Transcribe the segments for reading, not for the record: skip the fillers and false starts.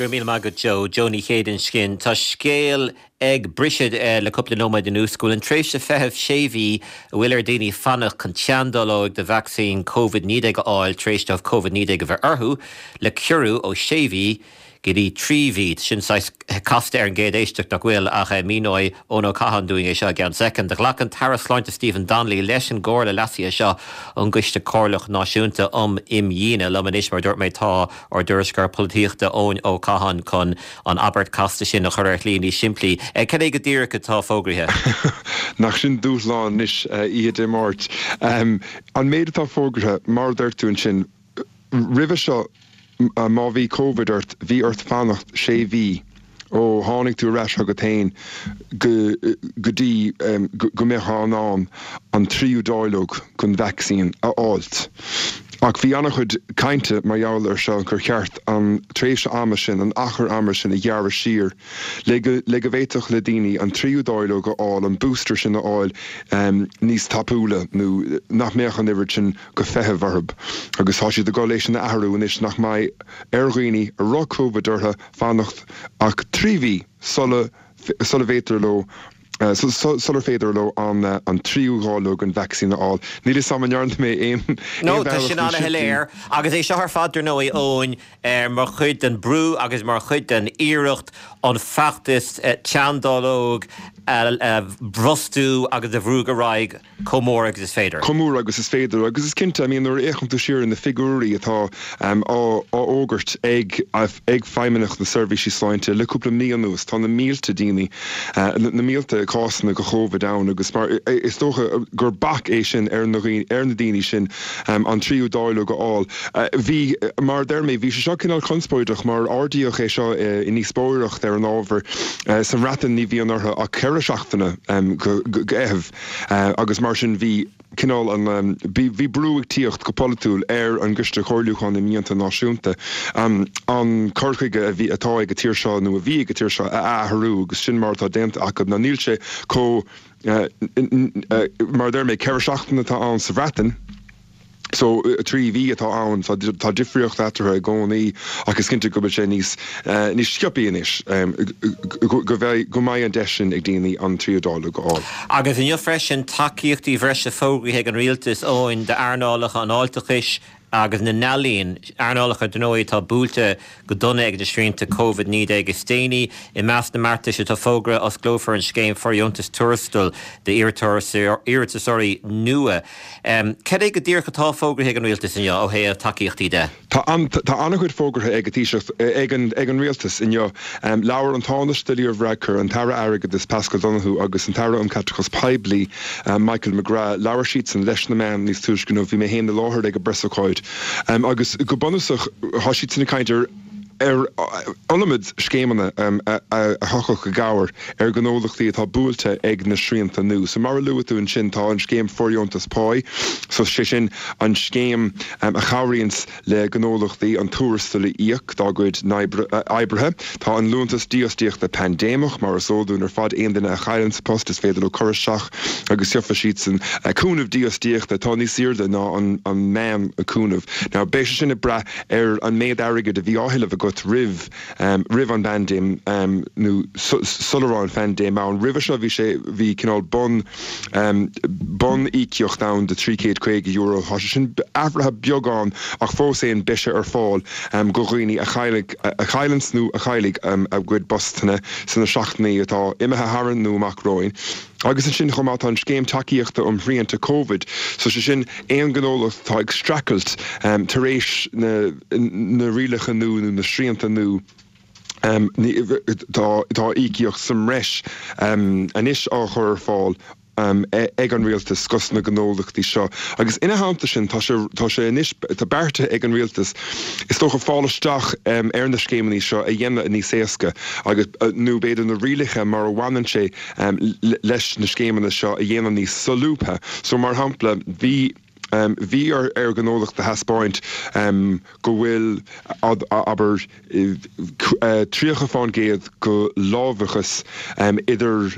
Go raibh míle maith agat Joe. Joe Ní Chéide ansin. Tá scéal ag briseadh le cúpla nóiméad anuas go bhfuil an tréimhse feithimh sé mhí a bhfuil ar dhaoine fanacht chun teanndáileog de vacsaín Covid-19 a fháil tar éis dóibh Covid-19 a bheith orthu le ciorrú ó sé mhí go dtí 3 mhí. Sin saghas casta ar an gcéad éisteacht, nach bhfuil? Ach míneoidh Eoin Ó Catháin dúinn é seo i gceann soicind. Ghlac an tAire Sláinte Stephen Donnelly leis an gcomhairle leasaithe seo ón gCoiste Comhairleach Náisiúnta um Imdhíonadh. Liom anois, mar a dúirt mé, tá ár dtuairisceoir polaitíochta Eoin Ó Catháin chun an abairt casta sin a chur ar shlí níos simplí. Cad é go díreach atá fógraithe? Nach sin dúshlán anois oíche Dé Máirt. An méid atá fógraithe, mar a dúirt tú ansin, Roimhe seo, má bhí Covid ort, bhí ort fanacht sé mhí ó tháinig tú ar ais chugat féin go go dtí go mbeifeá in ann an tríú dáileog den vacsaín a fháilt. Ach bhí an-chuid cainte mar gheall air seo gur cheart an tréimhse ama sin, an achar ama sin a ghearradh siar le go le go bhféadfadh le daoine an tríú dáileog a fháil, an booster sin a fháil níos tapúla nó nach mbeadh an oiread sin go feitheamh orthu agus tá siad ag dul é sin a athrú anois nach mbeidh ar dhaoine a raibh Covid orthu fanacht ach 3 mhí sula sula bhféadtar leo sular féidir leo an an tríú dháileog den vacsaín a fháil. Níl 'fhios a'm an ndearna mé aon No, tá sin an-shoiléir agus é seo ar fad dar ndóigh Eoin mar chuid den brú agus mar chuid den iarracht an feachtas teanndáileog a bhrostú agus a bhrú ar aghaidh chomh mór agus is féidir. Chomh mór agus is féidir. Agus is cinnte, I mean, nuair a fhéachann tú siar ar na figiúirí atá á bhfógairt ag ag Feidhmeannacht na Seirbhísí Sláinte le cúpla mí anuas, tá na mílte daoine, na mílte cásanna de Chóvid ann agus mar is dócha gur bac é sin ar na ar na daoine sin an tríú dáileog a fháil. Bhí, mar a deir mé, bhí sé seo cineál conspóideach mar ardaíodh é seo i ndíospóireacht ar an ábhar. Sa mBreatain ní bhíonn orthu ach 4 seachtaine go fheitheamh agus mar sin bhí cineál an, bhí brú ag tíocht go polaitiúil ar an gCoiste Comhairliúcháin Imdhíonta Náisiúnta an cur chuige a bhí, atá ag an tír seo nó a bhí ag an tír seo a athrú agus sin mar atá déanta acu. Now níl sé chomh, mar a deir mé, 4 seachtaine atá ann sa Bhreatain. So, 3 mhí atá ann, tá difríocht eatarthu i gcónaí ach is cinnte go bhfuil sé níos, níos sciobthaí anois, go mbeidh, go mbeidh an deis sin ag daoine an tríú dáileog a fháil. Agus inniu freisin, tacaíochtaí bhreise fógraithe ag an Rialtas, Eoin, d'earnálacha an fháilteachais agus na n-ealaíon, earnálacha, dar ndóigh, atá buailte go dona ag na srianta Covid-19 is déanaí. I measc na mbeartais atá fógraithe, osclófar an scéim fóirdheontais tuarastail d'iarratasóirí nua. Cad é go díreach atá fógraithe ag an Rialtas inniu ó thaobh tacaíochtaí de? Tá an-chuid fógartha ag an Taoiseach, ag an Rialtas inniu. Labhair an Tánaiste Leo Varadkar, an tAire Airgeadais Paschal Donohoe agus an tAire um Chaiteachas Poiblí Michael McGrath, labhair siadsan leis na meáin níos túisce inniu. Bhí mé féin i láthair ag an bpreasócáid agus go bunúsach tá siadsan ag caint ar ar iliomad scéimeanna a thiocfadh i gcabhair ar ghnólachtaí atá buailte ag na srianta nua. So mar a luaigh tú ansin tá an scéim fóirdheontas páí, so sé sin an scéim a chabhraíonns le gnólachtaí an tuarastal a íoc dá gcuid oibrithe. Tá an liúntas dífhostaíochta paindéimeach, mar is eol dúinn ar fad, aon duine a chailleanns a post is féidir leo cur isteach agus gheobhaidh siadsan cúnamh dífhostaíochta atá níos airde ná an meán cúnamh. Now beidh sé sin ag brath ar an méid airgid a bhí á thuilleamh agat roimh roimh an bpaindéim nó sula raibh an phaindéim ann. Roimhe seo bhí sé bhí cineál bun bun íocaíocht ann de €350. Tá sé sin athraithe beagán ach fós féin beidh sé ar fáil go dhaoine a chaillfidh a chailleanns nó a chaillfidh a gcuid postanna sna seachtainí atá imithe tharainn nó amach romhainn. Agus ansin chomh maith tá an scéim tacaíochta um shrianta Covid, so sé sin aon ghnólacht atá ag streachailt tar éis na na rialacha nua nó na srianta nua, tá tá íocaíocht sa mbreis anois á chur ar fáil ag an rialtas dos na gnólachtaí seo. Agus ina theannta sin tá sé tá sé anois tá beartaithe ag an rialtas is dócha fáil isteach ar na scéimeanna seo a dhéanamh níos éasca agus nó b'fhéidir na rialacha mar a bhaineann sé leis na scéimeanna seo a dhéanamh níos solúbtha. So, mar shampla, bhí bhí ar ar ghnólacht a thaispeáint go bhfuil, abair, 30 fán gcéad go láimhdeachas idir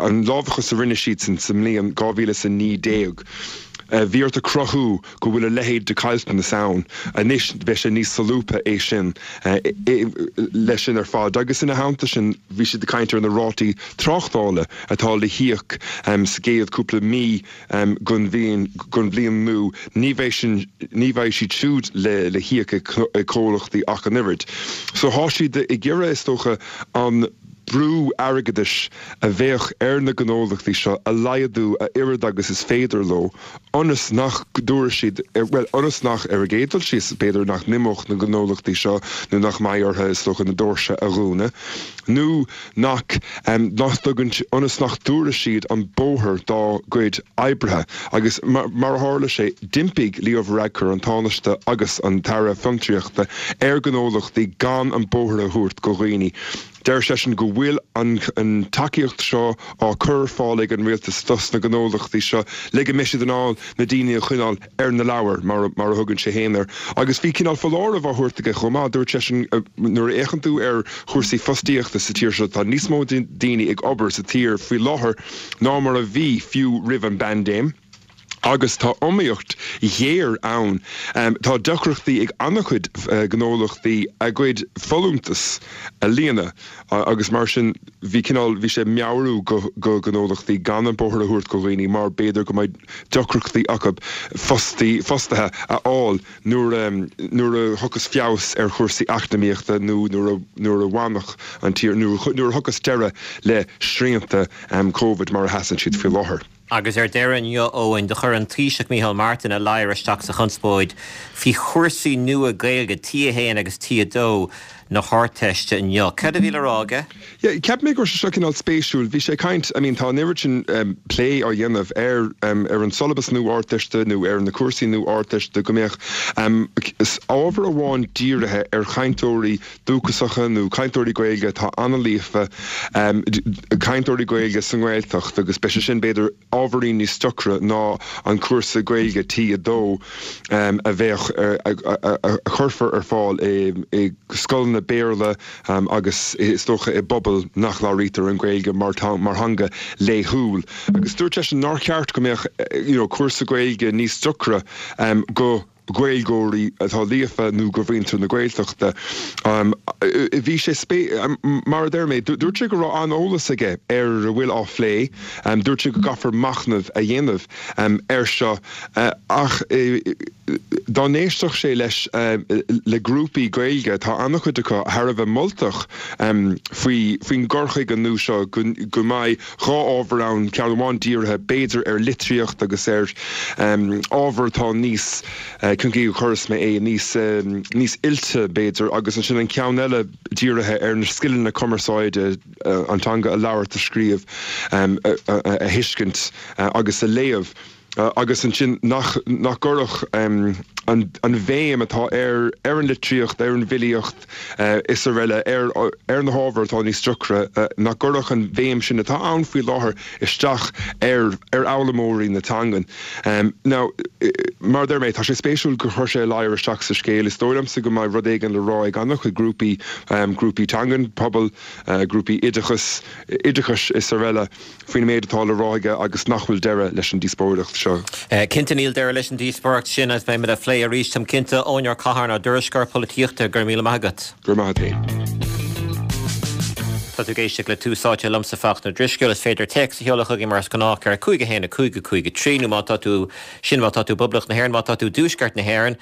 an láimhdeachas a rinne siadsan sa mbliain 2019. Bhí ort a cruthú go bhfuil a leithéid de caillteanas ann. Anois beidh sé níos solúbtha é sin leis sin ar fad. Agus ina theannta sin bhí siad ag caint ar na rátaí tráchtála atá le híoc sa gcéad cúpla mí den bhliain nua. Ní bheidh sin, ní bheidh siad siúd le híoc ag comhlachtaí ach an oiread. So thá siad ag iarraidh is dócha an brú airgeadais a bheadh ar na gnólachtaí seo a laghdú a oiread agus is féidir leo ionas nach dtabharfaidh siad, bhuel, ionas nach, ar an gcéad dul síos, b'fhéidir nach n-imeodh na gnólachtaí seo nó nach mbeidh orthu, is dócha, na doirse a dhúnadh nó nach, nach dtugann, ionas nach dtabharfaidh siad an bóthar dá gcuid oibrithe. Agus mar a tharla sé, d'impigh Leo Varadkar, an Tánaiste agus an tAire Fiontraíochta, ar ghnólachtaí gan an bóthar a thabhairt go dhaoine. Deir seisean go bhfuil an tacaíocht seo á cur ar fáil ag an rialtas dos na gnólachtaí seo le go mbeidh siad in ann na daoine a choinneáil ar na leabhair, mar a thugann sé féin air. Agus bhí cineál foláireamh á thabhairt aige chomh maith. Dúirt seisean nuair a fhéachann tú ar chúrsaí fostaíochta sa tír seo, tá níos mó daoine ag obair sa tír faoi láthair ná mar a bhí fiú roimh an bpaindéim. Agus tá iomaíocht ghéar ann. Tá deacrachtaí ag an-chuid gnólachtaí a gcuid folúntas a líonadh agus mar sin bhí cineál, bhí sé ag meabhrú go gnólachtaí gan an bóthar a thabhairt go dhaoine mar b'fhéidir go mbeidh deacrachtaí acu fostaí, fostaithe a fháil nuair a, nuair a thiocfas feabhas ar chúrsaí eacnamaíochta nó nuair a, nuair a bhainfeadh an tír, nuair a thiocfas deireadh le srianta Covid mar a sheasann siad faoi láthair. Agus ar deireadh inniu, Eoin, do chuir an Taoiseach Micheál Martin a ladhar isteach sa chonspóid faoi chúrsaí nua Gaeilge T1 agus T2 na hArdteiste inniu. Cad a bhí le rá aige? Yeah, cheap mé go raibh sé seo cineál spéisiúil. Bhí sé ag caint, I mean tá an oiread sin plé á dhéanamh ar ar an siollabas nua Ardteiste nó ar na cúrsaí nua Ardteiste go mbeadh ábhar amháin dírithe ar chainteoirí dúchasacha nó cainteoirí Gaeilge atá an-líofa, cainteoirí Gaeilge sa nGaeltacht agus beidh sé sin b'fhéidir ábhairín níos deacra ná an cúrsa Gaeilge T2 a bheadh, a chuirfear ar fáil i scoileanna Béarla agus is dócha i bpobail nach labhraítear an Ghaeilge mar theanga laethúil. Agus dúirt seisean nár cheart go mbeadh you know cúrsa Gaeilge níos deacra go Gaeilgeoirí atá líofa nó go mhuintir na Gaeltachta. Bhí sé, mar a deir mé, dúirt sé go raibh an-eolas aige ar a bhfuil á phlé. Dúirt sé go gcaithfear machnamh a dhéanamh air seo ach dá n-éistfeadh sé leis le grúpaí Gaeilge, tá an-chuid acu thar a bheith moltach faoi faoin gcur chuige nua seo go mbeidh 2 ábhar ann, ceann amháin dírithe, b'fhéidir, ar litríocht agus ar ábhar atá níos, cén chaoi a chuirfeas mé é, níos, níos oilte, b'fhéidir, agus ansin an ceann eile dírithe ar na scileanna cumarsáide, an teanga a labhairt, a scríobh, a thuiscint agus a léamh. agus ansin nach nach gcuirfeadh an an bhéim atá ar ar an litríocht, ar an bhfilíocht is araile, ar ar na hábhair atá níos deacra, nach gcuirfeadh an bhéim sin atá ann faoi láthair isteach ar ar fhoghlaimeoirí na teangan. Now, mar a deir mé, tá sé spéisiúil gur chuir sé a ladhar isteach sa scéal. Is dóigh liomsa go mbeidh rud éigin le rá ag an-chuid grúpaí, grúpaí teangan, pobail, grúpaí oideachas, oideachais is araile. faoin méid atá le rá aige agus nach bhfuil deireadh leis an díospóireacht seo. Cinnte níl deireadh leis an díospóireacht sin agus beimid á phlé arís, táim cinnte. Eoin Ó Catháin, ár dtuairisceoir polaitíochta, go raibh míle maith agat. Go raibh maith agat féin. Tá tú ag éisteacht le Tús Áite liomsa Fachtna Ó Drisceoil. Is féidir téacs a sheoladh chugainn mar is gnách ar 5 1 5 5 3 nó má tá tú, sin má tá tú i bPoblacht na hÉireann, má tá tú i dTuaisceart na hÉireann,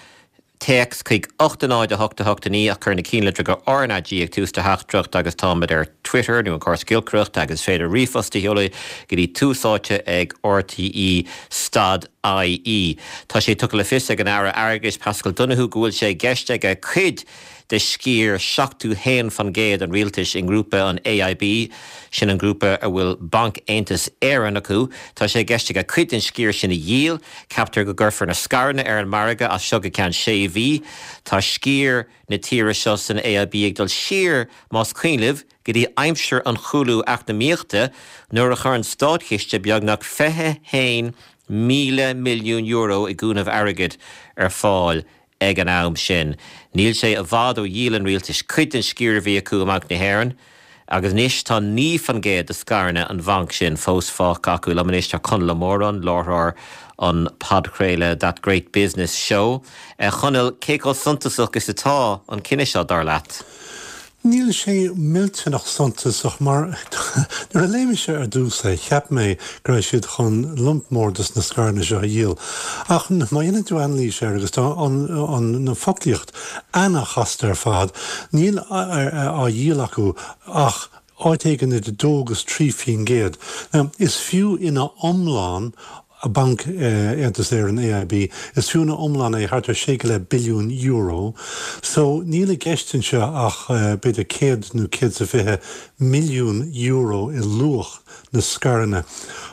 Téacs chuig 8 0 8 8 9 ach cuir na cinnlitreacha RnaG ag tús do theachtaireacht agus táimid ar Twitter nó an córas giolcaireachta agus is féidir ríomhphost a sheoladh go dtí tús áite ag rte stad ie. Tá sé tugtha le fios ag an Aire Airgeadais Paschal Donohoe go bhfuil sé i gceist aige cuid de sciar 71% an rialtais i ngrúpa an AIB, sin an grúpa a bhfuil Banc Aontas Éireann acu, tá sé i gceist aige cuid den sciar sin a dhíol. Ceaptar go gcuirfear na scaireanna ar an margadh as seo go ceann sé mhí. Tá sciar na tíre seo san AIB ag dul siar, más cuimhin libh, go dtí aimsir an chúlú eacnamaíochta nuair a chuir an státchiste beagnach €21,000 milliún i gcúnamh airgid ar fáil ag an am sin. Níl sé i bhfad ó dhíol an rialtais cuid den sciar a bhí acu i mBanc na hÉireann. Agus anois tá 9% de scaireanna an bhainc sin fós fágtha acu. Liom anois tá Conall Ó Móráin, láithreoir an podchraoladh That Great Business Show. A Chonaill, cé chomh suntasach is atá an cinneadh seo, dar leat? Níl sé millteanach suntasach mar nuair a léigh mise ar dtús é cheap mé go raibh siad chun lump mór dos na scaireanna seo a dhíol. Ach má dhéanann tú anailís air agus tá an an foclaíocht ana-chasta ar fad, níl á dhíol acu ach áit éigin idir 2 agus 3%. Now is fiú ina iomlán Banc Aontas Éireann, AIB, is fiú ina iomlán é thart ar sé go leith billiún euro. So níl i gceist anseo ach b'fhéidir 100 nó 120 milliún euro i luach na scaireanna.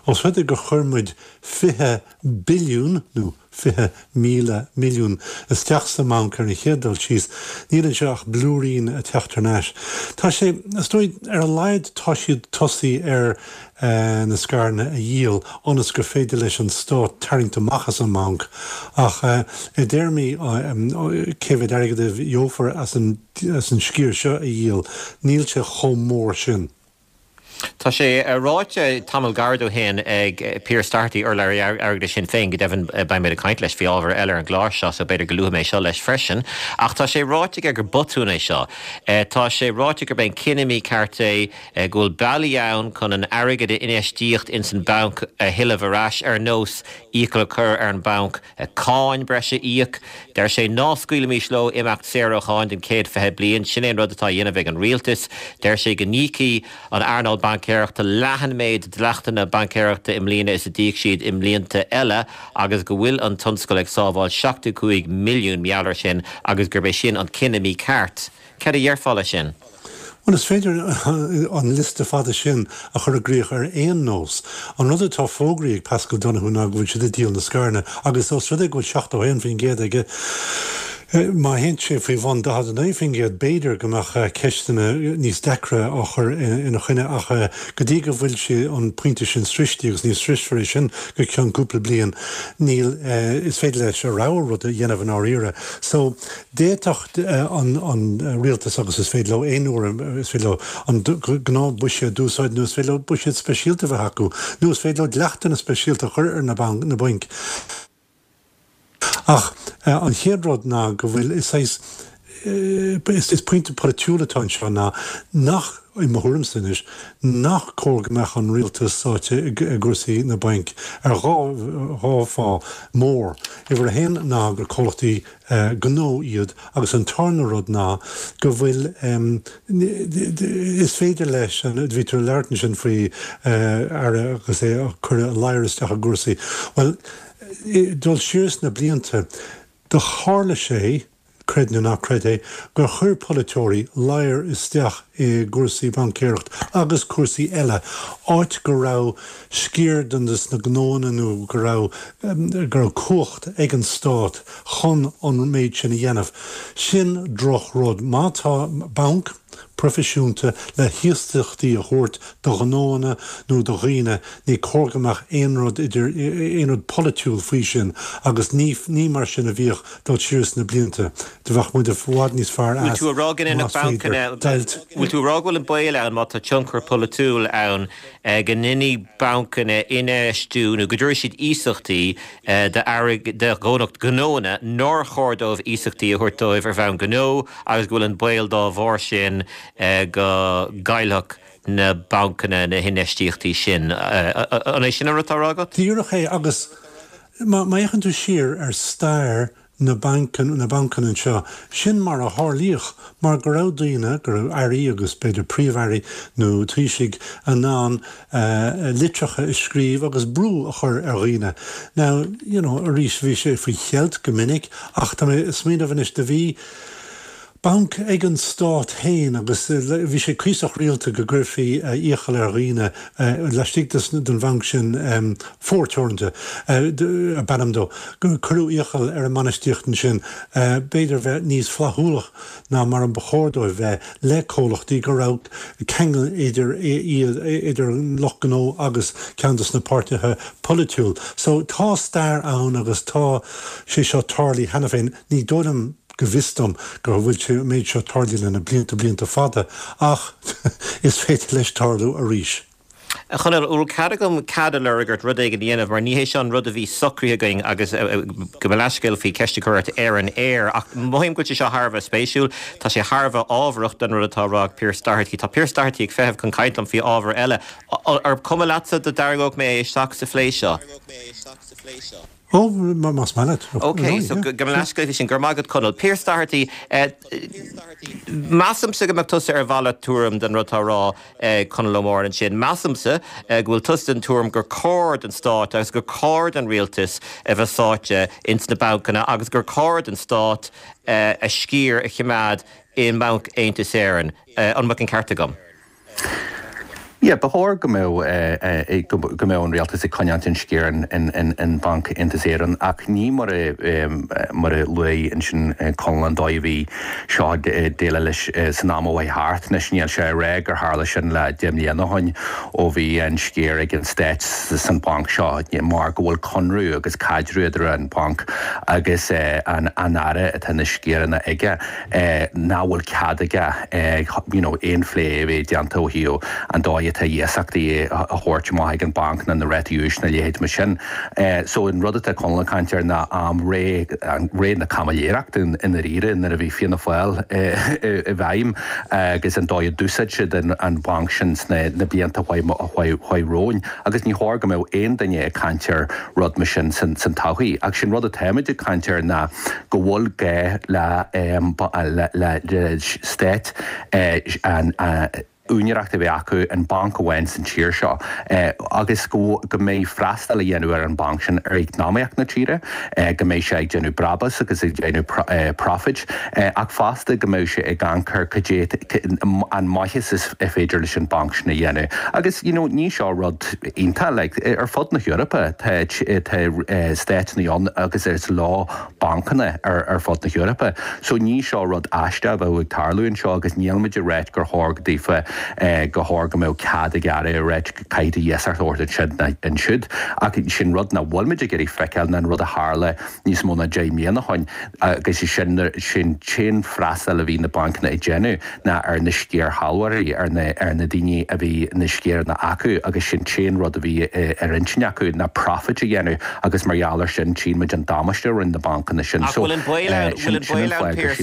Os rud é gur chuir muid 20 billiún, nó 20,000 milliún, isteach sa mbanc ar an chéad dul síos, níl anseo ach blúirín ag teacht thar n-ais. Tá sé, is dóigh, ar a laghad tá siad tosaí ar na scaireanna a dhíol ionas gur féidir leis an stát tarraingt amach as an mbanc ach i dtéarmaí cé mhéad airgead a gheofar as an sciar seo a dhíol, níl sé chomh mór sin. Tá sé ráite tamall gairid ó shin ag Pearse Doherty, urlabhraí airgeadais Shinn Féin, go deimhin beidh mé ag caint leis faoi ábhar eile ar an gclár seo so b'fhéidir go luafaidh mé seo leis freisin, ach tá sé ráite aige gur botún é seo. Tá sé ráite gurb é an cinneadh mícheart é. go bhfuil bealaí ann chun an airgead a infheistíodh ins an banc a thuilleamh ar ais, ar nós iachall a chur ar an banc cáin breise a íoc. Deir sé ná scaoilimis leo imeacht saor ó cháin don chéad 20 bliain. Sin é an rud atá á dhéanamh ag an rialtas. Deir sé go n-íocfaidh an earnáil baincéireachta leath an méid dleachtanna baincéireachta i mbliana is a d'íoc siad i mblianta eile agus go bhfuil an tionscal ag sábháil 75 milliún mar gheall air sin agus gurb é sin an cinneadh mícheart. Cad a dhéarfá leis sin? Bhuel, is féidir an liosta fada sin a chur i gcrích ar aon nós. An rud atá fógraithe ag Paschal Donohoe ná go bhfuil siad ag díol na scaireanna agus os rud é go bhfuil 71% aige, má théann sé faoi bhun 49% b'fhéidir go mbeadh ceisteanna níos deacra á chur ina choinne ach go dtí go bhfuil sé an pointe sin sroichte agus ní sroisfear é sin go ceann cúpla bliain, níl, is féidir leis a rogha rud a dhéanamh i ndáiríre. So, D'fhéadfadh an rialtas, agus is féidir leo aon uair, is féidir leo an gnáthbhuiséad d'úsáid nó is féidir leo buiséad speisialta a bheith acu nó is féidir leo dleachtanna speisialta a chur ar na bainc. Ach an chéad rud ná go bhfuil, is saghas, is pointe polaitiúil atá anseo ná nach, i mo thuairimse anois, nach cóir go mbeadh an rialtas sáite i gcúrsaí na bainc ar dhá fáth mór. Uimhir a haon ná gur comhlachtaí gnó iad agus an tarna rud ná go bhfuil, is féidir leis an, bhí tú ag labhairt ansin faoi aire agus é ag cur a ladhar isteach i gcúrsaí, bhuel, dul siar sna blianta, do tharla sé, creid nó ná creid é, gur chuir polaiteoirí ladhar isteach i gcúrsaí baincéireacht agus cúrsaí eile, áit go raibh sciar de na gnóanna nó go raibh go raibh cumhacht ag an stát chun an méid sin a dhéanamh. Sin droch-rud. Má tá banc proifisiúnta le hiasachtaí a thabhairt do ghnóanna nó do dhaoine, ní cóir go mbeadh aon rud idir, aon rud polaitiúil faoi sin agus ní, ní mar sin a bhíodh dul siar sna blianta. Do bheadh muid i bhfad níos fearr as más féidir deighilt. Bhfuil tú a rá go bhfuil an baol ann má tá tionchar polaitiúil ann go ndéanfaidh bancanna infheistiú nó go dtabharfaidh siad iasachtaí do ghnóanna nár chóir dóibh iasachtaí a thabhairt dóibh ar bhonn gnó agus go bhfuil an baol dá bharr sin go gcaillfeadh na bancanna na hinfheistíochtaí sin. An é sin an rud atá á rá agat? Díreach é agus má fhéachann tú siar ar stair na mbancanna anseo, sin mar a tharlaíodh mar go raibh daoine, go raibh airí agus b'fhéidir príomh-airí nó taoisigh in ann litreacha a scríobh agus brú a chur ar dhaoine. Now, you know, arís bhí sé faoi cheilt go minic ach tá mé ag smaoineamh anois, do bhí banc ag an stát féin agus bhí sé cuíosach rialta go gcuirfí iachall ar dhaoine laistigh den bhanc sin, Fómhar Teoranta ab ainm dó, gur cuireadh iachall ar an mbainistíocht ansin b'fhéidir bheith níos flaithiúlach ná mar a ba chóir dóibh bheith le comhlachtaí go raibh ceangal idir iad, idir an lucht gnó agus ceann de na páirtithe polaitiúil. So tá stair ann agus tá sé seo tarlaithe cheana féin. Ní dóigh liom. go bhfios dom go bhfuil sé an méid seo tarlaithe le na blianta blianta fada ach is féidir leis tarlú arís. A Chonaill, an bhfuil cead agam cead a lorg ort rud éigin a dhéanamh mar ní hé seo an rud a bhí socraithe againn agus gabh mo leathscéal faoi ceist a chur ort ar an aer ach mothaím go bhfuil sé seo thar a bheith spéisiúil. Tá sé thar a bheith ábharach don rud atá á rá ag Pearse Doherty. Tá Pearse Doherty ag feitheamh chun caint liom faoi ábhar eile. Ar cuma leatsa dá dtarraingeodh mé é isteach sa phlé seo? Ó, más maith leat. Ok, so gabh mo leathscéal faoi sin. Go raibh maith agat Conall. Pearse Doherty, measaimse go mbeadh tusa ar mhalairt tuairim den rud atá á rá ag Conall Ó Móráin ansin. Measaimse go bhfuil tusa den tuairim gur cóir don stát agus gur cóir don rialtas a bheith sáite ins na bancanna agus gur cóir don stát a sciar a choimeád i mBanc Aontas Éireann. An mbeadh an ceart agam? Yeah, ba chóir go mbeadh go mbeadh an rialtas ag coinneáilt an sciar in Banc Aontas Éireann ach ní mar a mar a luaigh ansin Conall an dóigh a bhí seo ag déileáil leis san am a chuaigh thart. Anois níl sé ag rá gur tharla sin le 10 mbliana ó shin ó bhí an sciar ag an Stát san bhanc seo mar go bhfuil conradh agus caidreamh idir an banc agus an Aire atá na sciaranna aige. nach bhfuil cead aige you know aon phlé a bheith déanta ó thaobh an dóigh atá iasachtaí a thabhairt amach ag an banc ná na rátaí úis na leithéid mar sin. So an rud atá Conall ag caint air ná am ré ré na caimiléireachta i ndáiríre nuair a bhí Fianna Fáil i bhfeidhm agus an dóigh a d'úsáid siad an banc sin sna na blianta a chuaigh romhainn agus ní chóir go mbeadh aon duine ag caint ar rud mar sin san todhchaí. Ach sin rud atáimid ag caint air ná go bhfuil gá le stát an úinéireacht a bheith acu in banc amháin san tír seo agus go mbeidh freastal a dhéanamh ar an banc sin ar eacnamaíocht na tíre, go mbeidh sé ag déanamh brabús agus ag déanamh profit ach fosta go mbeidh sé ag amharc ar cad é an maitheas is féidir leis an banc sin a dhéanamh. Agus you know ní seo rud iontach like ar fud na hEorpa tá tá stáiteanna ann agus is leo bancanna ar ar fud na hEorpa. So ní seo rud aisteach a bheadh ag tarlú anseo agus níl muid ag ráit gur chóir go daofa go chóir go mbeadh cead ag aire a ráit caithfidh tú iasacht a thabhairt ansin ná ansiúd. Ach sin rud nach bhfuil muid ag iarraidh feiceáil ná an rud a tharla níos mó ná 10 mbliana ó shin agus sin sin t-aon freastal a bhí na bancanna ag déanamh ná ar na sciarshealbhóirí, ar na ar na daoine a bhí na sciaranna acu agus sin t-aon rud a bhí ar intinn acu ná profit a dhéanamh agus mar gheall ar sin tchíonn muid an damáiste a rinne na bancanna sin. Ach bhfuil an baol ann, bhfuil an baol ann Pearse,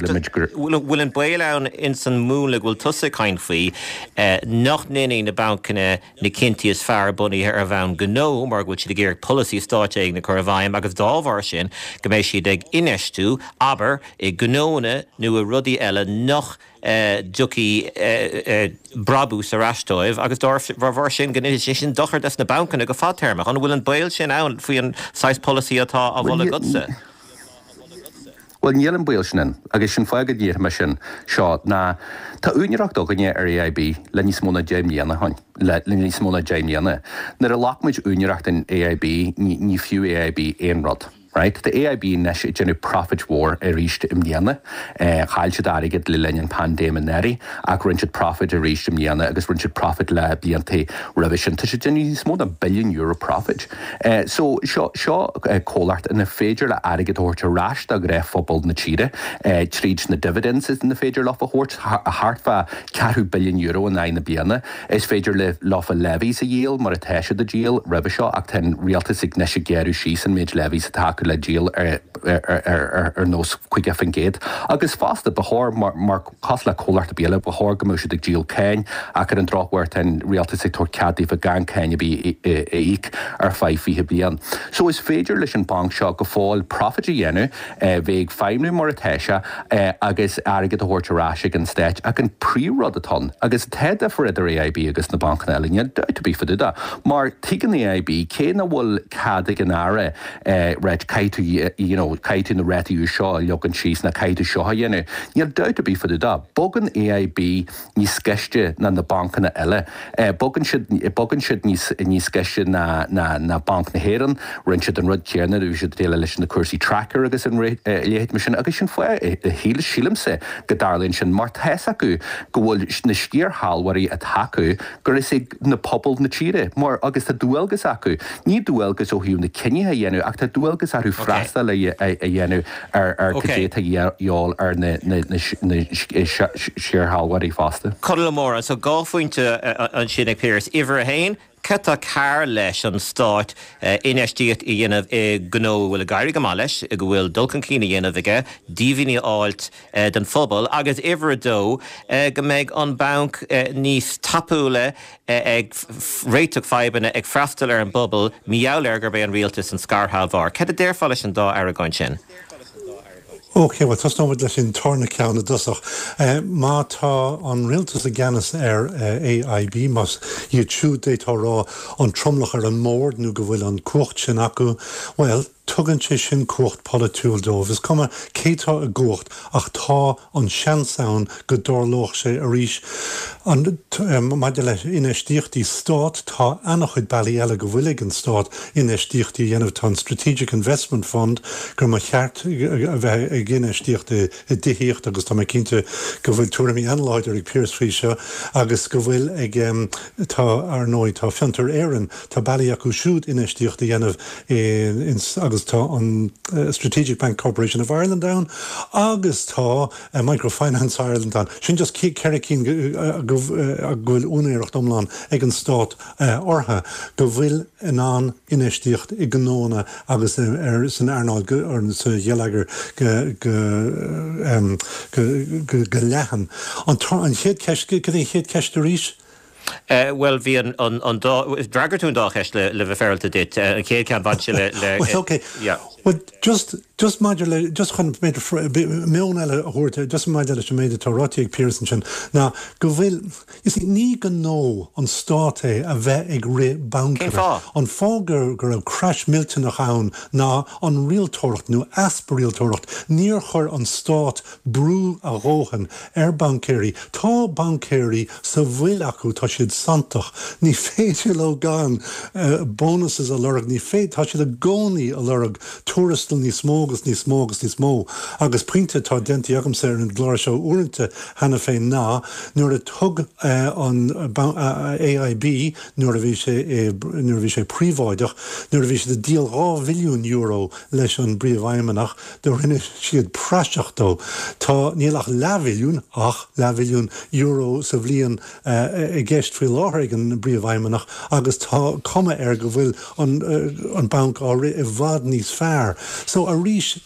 bhfuil an baol ann ins an múnla go bhfuil tusa ag caint faoi nach ndéanfaidh na bancanna na cinntí is fearr bunaithe ar bhonn gnó mar go bhfuil siad ag iarraidh polasaí stáit éigin a chur i bhfeidhm agus dá bharr sin go mbeidh siad ag infheistiú, abair, i ngnónna nó i rudaí eile nach dtiocfaidh brabús ar ais dóibh agus dá bharr sin go ndéanfaidh sé sin dochar dos na bancanna go fadtéarmach. An bhfuil an baol sin ann faoi an saghas polasaí atá á mholadh agatsa? Bhuel, níl an baol sin ann agus sin fáth go ndéarfaidh mé sin seo ná tá úinéireacht againne ar AIB le níos mó ná 10 mbliana ó shin, le níos mó ná 10 mbliana. Nuair a ghlac muid úinéireacht in AIB ní ní fiú AIB aon rud. Right? Tá AIB anois ag déanamh profit mhór arís i mbliana. Chaill siad airgead le linn an paindéim anuraidh ach rinne siad profit arís i mbliana agus rinne siad profit le blianta roimhe sin. Tá siad ag déanamh níos mó ná billiún euro profit. So seo seo comhlacht ina féidir le airgead a thabhairt ar ais do ghnáthphobal na tíre tríd na dividends ina féidir leofa a thabhairt, thart fá ceathrú billiún euro in aghaidh na bliana. Is féidir le leofa levies a dhíol mar atá siad ag díol roimhe seo ach tá an rialtas ag anois ag gearradh síos an méid levies atá acu le díol ar ar ar nós 50% agus fosta ba chóir mar mar cosúil le comhlacht ar bith eile ba chóir go mbeadh siad ag díol cáin ach ar an drochuair tá an rialtas ag tabhairt cead daofa gan cáin ar bith a íoc ar feadh 20 bliain. So is féidir leis an banc seo go fóill profit a dhéanamh, bheith ag feidhmiú mar atá sé agus airgead a thabhairt ar ais ag an stát ach an príomhrud atá ann, agus tá difear idir AIB agus na bancanna eile, níl dabht ar bith fá dtaobh de, mar tuigeann AIB cé nach bhfuil cead ag an Aire right caithfidh tú you know caithfidh tú na rátaí úis seo a leagan síos nó caithfidh tú seo a dhéanamh, níl dabht ar bith fá dtaobh de. Bogann AIB níos gaiste ná na bancanna eile. Bogann siad, bogann siad níos, níos gaiste ná, ná, ná Banc na hÉireann. Rinne siad an rud céanna nuair a bhí siad ag déileáil leis na cúrsaí tracker agus an a leithéid mar sin agus sin fáth a shíl, sílimse go dtarlaíonn sin mar tá's acu go bhfuil na sciarshealbhóirí atá acu gur is ag na pobal na tíre mar agus tá dualgas acu, ní dualgas ó thaobh na cinnithe a dhéanamh ach tá dualgas orthu. orthu freastal a dhéanamh ar cad é atá de dhíobháil ar na scairshealbhóirí fosta. Conall Ó Móráin, So 2 phointe ansin ag Pearse. Uimhir a haon, cad tá cearr leis an Stát infheistíocht a dhéanamh i ngnó a bhfuil ag éirí go maith leis, go bhfuil dul chun cinn a dhéanamh aige, díbhinní a fháilt don phobal, agus uimhir a dó, go mbeidh an banc níos tapúla ag réiteach fadhbanna, ag freastal ar an bpobal, mar gheall ar gurb é an rialtas an scairshealbhóir. Cad a déarfá leis an dá argóint sin? Ok, bhuel tosnóimid leis an tarna ceann i dtosach. Má tá an rialtas i gceannas ar AIB, más iad siúd d'fhéadfá a rá an tromlach ar an mbord nó go bhfuil an cumhacht sin acu, bhuel, tugann sé sin cumhacht polaitiúil dóibh. Is cuma cé tá i gcumhacht ach tá an seans ann go dtarlódh sé arís. Maidir le infheistíochtaí Stáit, tá an-chuid bealaí eile go bhfuil ag an Stát infheistíochtaí a dhéanamh. Tá an Strategic Investment Fund gur mba cheart a bheith ag infheistíocht i dtithíocht agus tá mé cinnte go bhfuil tuairimí an-láidir ag Pearse faoi seo agus go bhfuil ag, tá, ar ndóigh, tá Fiontar Éireann, tá bealaí acu siúd infheistíocht a dhéanamh in agus tá an Strategic Bank Corporation of Ireland ann agus tá Microfinance Ireland ann. Sin just 4 cinn go bhfuil úinéireacht iomlán ag an Stát orthu, go bhfuil in ann infheistíocht i ngnóanna agus san earnáil, sa gheilleagar go leathan. An chéad cheist, cad é an chéad cheist arís? Bhuel, bhí an dá, d'fhreagair tú an dá cheist le bheith féaráilte duit. An chéad cheann, bhain sé le, le, Well, ok. yeah. Well, just, just maidir le, just chun b'fhéidir meon eile a thabhairt, just maidir leis an méid atá ráite ag Pearse ansin, ná go bhfuil, you see, ní gnó an Stát é a bheith ag rith Cén bancanna. fáth? An fáth go, go raibh crash millteanach ann ná an rialtóireacht nó easpa rialtóireacht. Níor chuir an Stát brú a dhóthain ar baincéirí. Tá baincéirí sa bhfuil acu, tá siad santach. Ní féidir leo gan bonuses a lorg, ní féidir, tá siad i gcónaí a lorg tuarastal níos mó agus níos mó agus níos mó. Agus pointe atá déanta agamsa ar an gclár seo uaireanta cheana féin ná nuair a thug an AIB, nuair a bhí sé, nuair a bhí sé príobháideach, nuair a bhí siad ag díol €2 bhilliún leis an bpríomhfheidhmeannach, Do rinne siad praiseach dó. Tá, níl ach leathbhilliún, ach leathbhilliún euro sa bhliain i gceist faoi láthair ag an bPríomhfheidhmeannach agus tá cuma air go bhfuil an an banc á rith i bhfad níos fearr. So arís,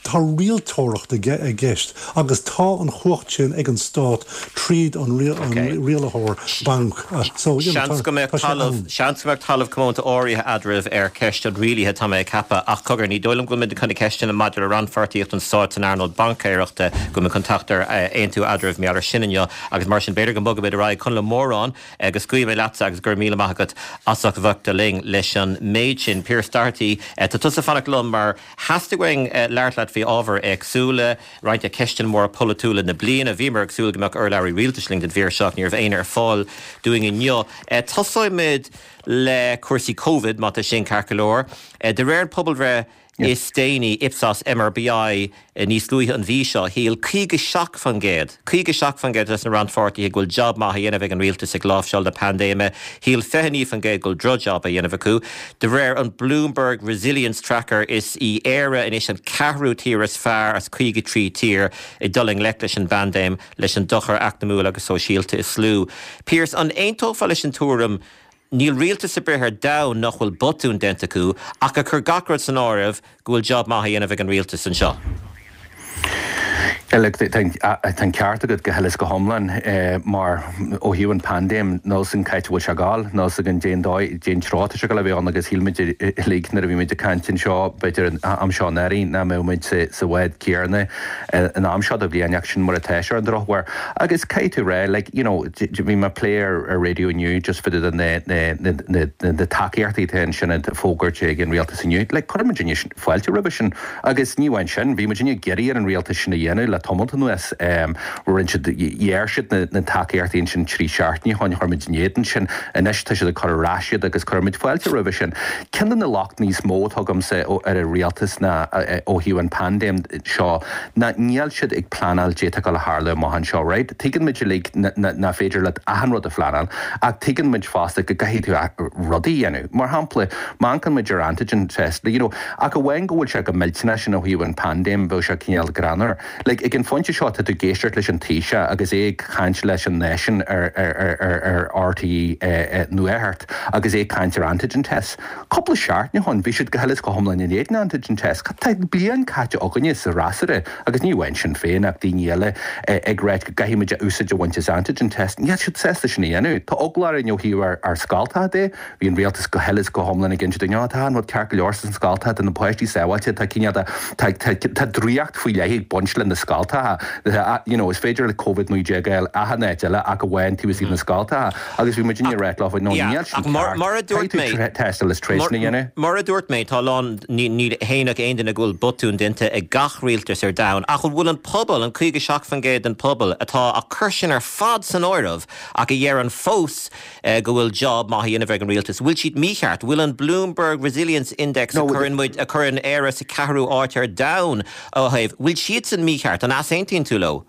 tá rialtóireacht i gceist agus tá an chumhacht sin ag an Stát tríd an rialaitheoir banc. So, you know, tá sé ann. Seans go mbeadh talamh comónta áirithe eadraibh ar cheist an rialaithe, tá mé ag ceapadh, ach cogar, ní dóigh liom go bhfuil muid chun na ceisteanna maidir le rannpháirtíocht an stáit san earnáil baincéireachta, go bhfuil muid chun teacht ar aontú eadraibh mar gheall air sin inniu agus mar sin b'fhéidir go mbogfaimid ar aghaidh. Conall Ó Móráin, go scaoilfidh mé leatsa agus go raibh míle maith agat as ucht a bheith linn leis an méid sin. Pearse Doherty, tá tusa ag fanacht liom mar theastaigh uainn labhairt leat faoi ábhair éagsúla. Roinnt de cheisteanna móra polaitiúla na bliana. Bhíomar ag súil go mbeadh urlabhraí rialtais linn don mhír seo ach ní raibh éinne ar fáil dúinn inniu. Tosóimid le cúrsaí Covid, má tá sin ceart go leor. De réir an pobalbhreith is déanaí, Ipsos MRBI, níos luaithe an mhí seo, shíl 57%, 57% de na rannpháirtithe go bhfuil jab maith á dhéanamh ag an rialtas ag láimhseáil na paindéime. Shíl 29% go bhfuil drochjab á dhéanamh acu. De réir an Bloomberg Resilience Tracker, is í Éire anois an ceathrú tír is fearr as 53 tír ag dul i ngleic leis an bpaindéim, leis an dochar eacnamúil agus sóisialta is lú. Pearse, an aontófá leis an tuairim, níl rialtas ar bith ar domhan nach bhfuil botún déanta acu, ach ag cur gach rud san áireamh, go bhfuil jab maith á dhéanamh ag an rialtas anseo. Yeah, look, tá an ceart agat go huile is go hiomlán mar ó thaobh an paindéim, níl 's againn cá háit a bhfuil sé ag gabháil, níl 's againn cén dóigh, cén treo atá sé ag gabháil a bheith ann agus shíl muid uilig nuair a bhí muid ag caint anseo b'fhéidir an am seo anuraidh nach mbeadh muid sa bhád céanna an am seo de bhliain ach sin mar atá sé ar an drochuair. Agus caithfidh tú rá, like, you know, bhí mé ag plé ar raidió inniu just fá dtaobh de na tacaíochtaí atá ansin á bhfógairt ag an rialtas inniu. Like, chuir muidinne fáilte roimhe sin agus ní amháin sin, bhí muidinne ag iarraidh ar an rialtas sin a dhéanamh le. tamalt anuas. Rinne siad, ghearr siad na tacaíochtaí ansin 3 seachtaine ó shin, chuir muid in éadan sin. Anois tá siad ag cur ar ais iad agus cuirfidh muid fáilte roimhe sin. Ceann de na locht níos mó atá agamsa ar an rialtas ná ó thaobh an paindéim seo ná níl siad ag pleanáil caidé atá ag dul a tharlú amach anseo, right? Tuigeann muid uilig nach féidir leat achan rud a phleanáil ach tuigeann muid fosta go gcaithfidh tú rudaí a dhéanamh. Mar shampla, má amharcann muid ar antigen test, you know, ach amháin go bhfuil sé go millteanach sin ó thaobh an paindéim, bheadh sé cineál greannmhar. Like, ag an phointe seo tá tú ag éisteacht leis an Taoiseach agus é ag caint leis an náisiún ar ar ar RTÉ Nuacht agus é ag caint ar antigen tests. Cúpla seachtain ó shin bhí siad go huile is go hiomlán in éadan antigen tests. Tá bliain caite againne sa fhreasúra, agus ní amháin Sinn Féin ach daoine eile, ag ráit go gcaithfidh muid úsáid a bhaint as antigen tests. Níl siad sásta sin a dhéanamh. Tá eagla orainn ó thaobh ár scoltacha de. Bhí an rialtas go huile is go hiomlán ag inse dúinn, 'Ó, tá an rud ceart go leor sna scoltacha, tá na páistí sábháilte, tá cineál de, tá, tá, tá draíocht faoi leith ag baint le na scoltacha, you know, is féidir le Covid-19 a fháil achan áit eile ach amháin taobh istigh de na scoltacha. Agus bhí muidinne ag ráit leo, no, níl sin ceart, caithfidh tú tástáil is tar éis sin a dhéanamh. Mar a dúirt mé, tá a lán, ní, ní shéanfadh aon duine go bhfuil botúin déanta ag gach rialtas ar domhan, ach an bhfuil an pobal, an 57% den pobal atá ag cur sin ar fad san áireamh ach a dheireann fós, go bhfuil job maith á dhéanamh ag an rialtas. Bhfuil siad mícheart? Bhfuil an Bloomberg Resilience Index a chuireann muid, a chuireann Éire sa ceathrú áit ar domhan ó thaobh, bhfuil siadsan mícheart? An easaontaíonn tú leo?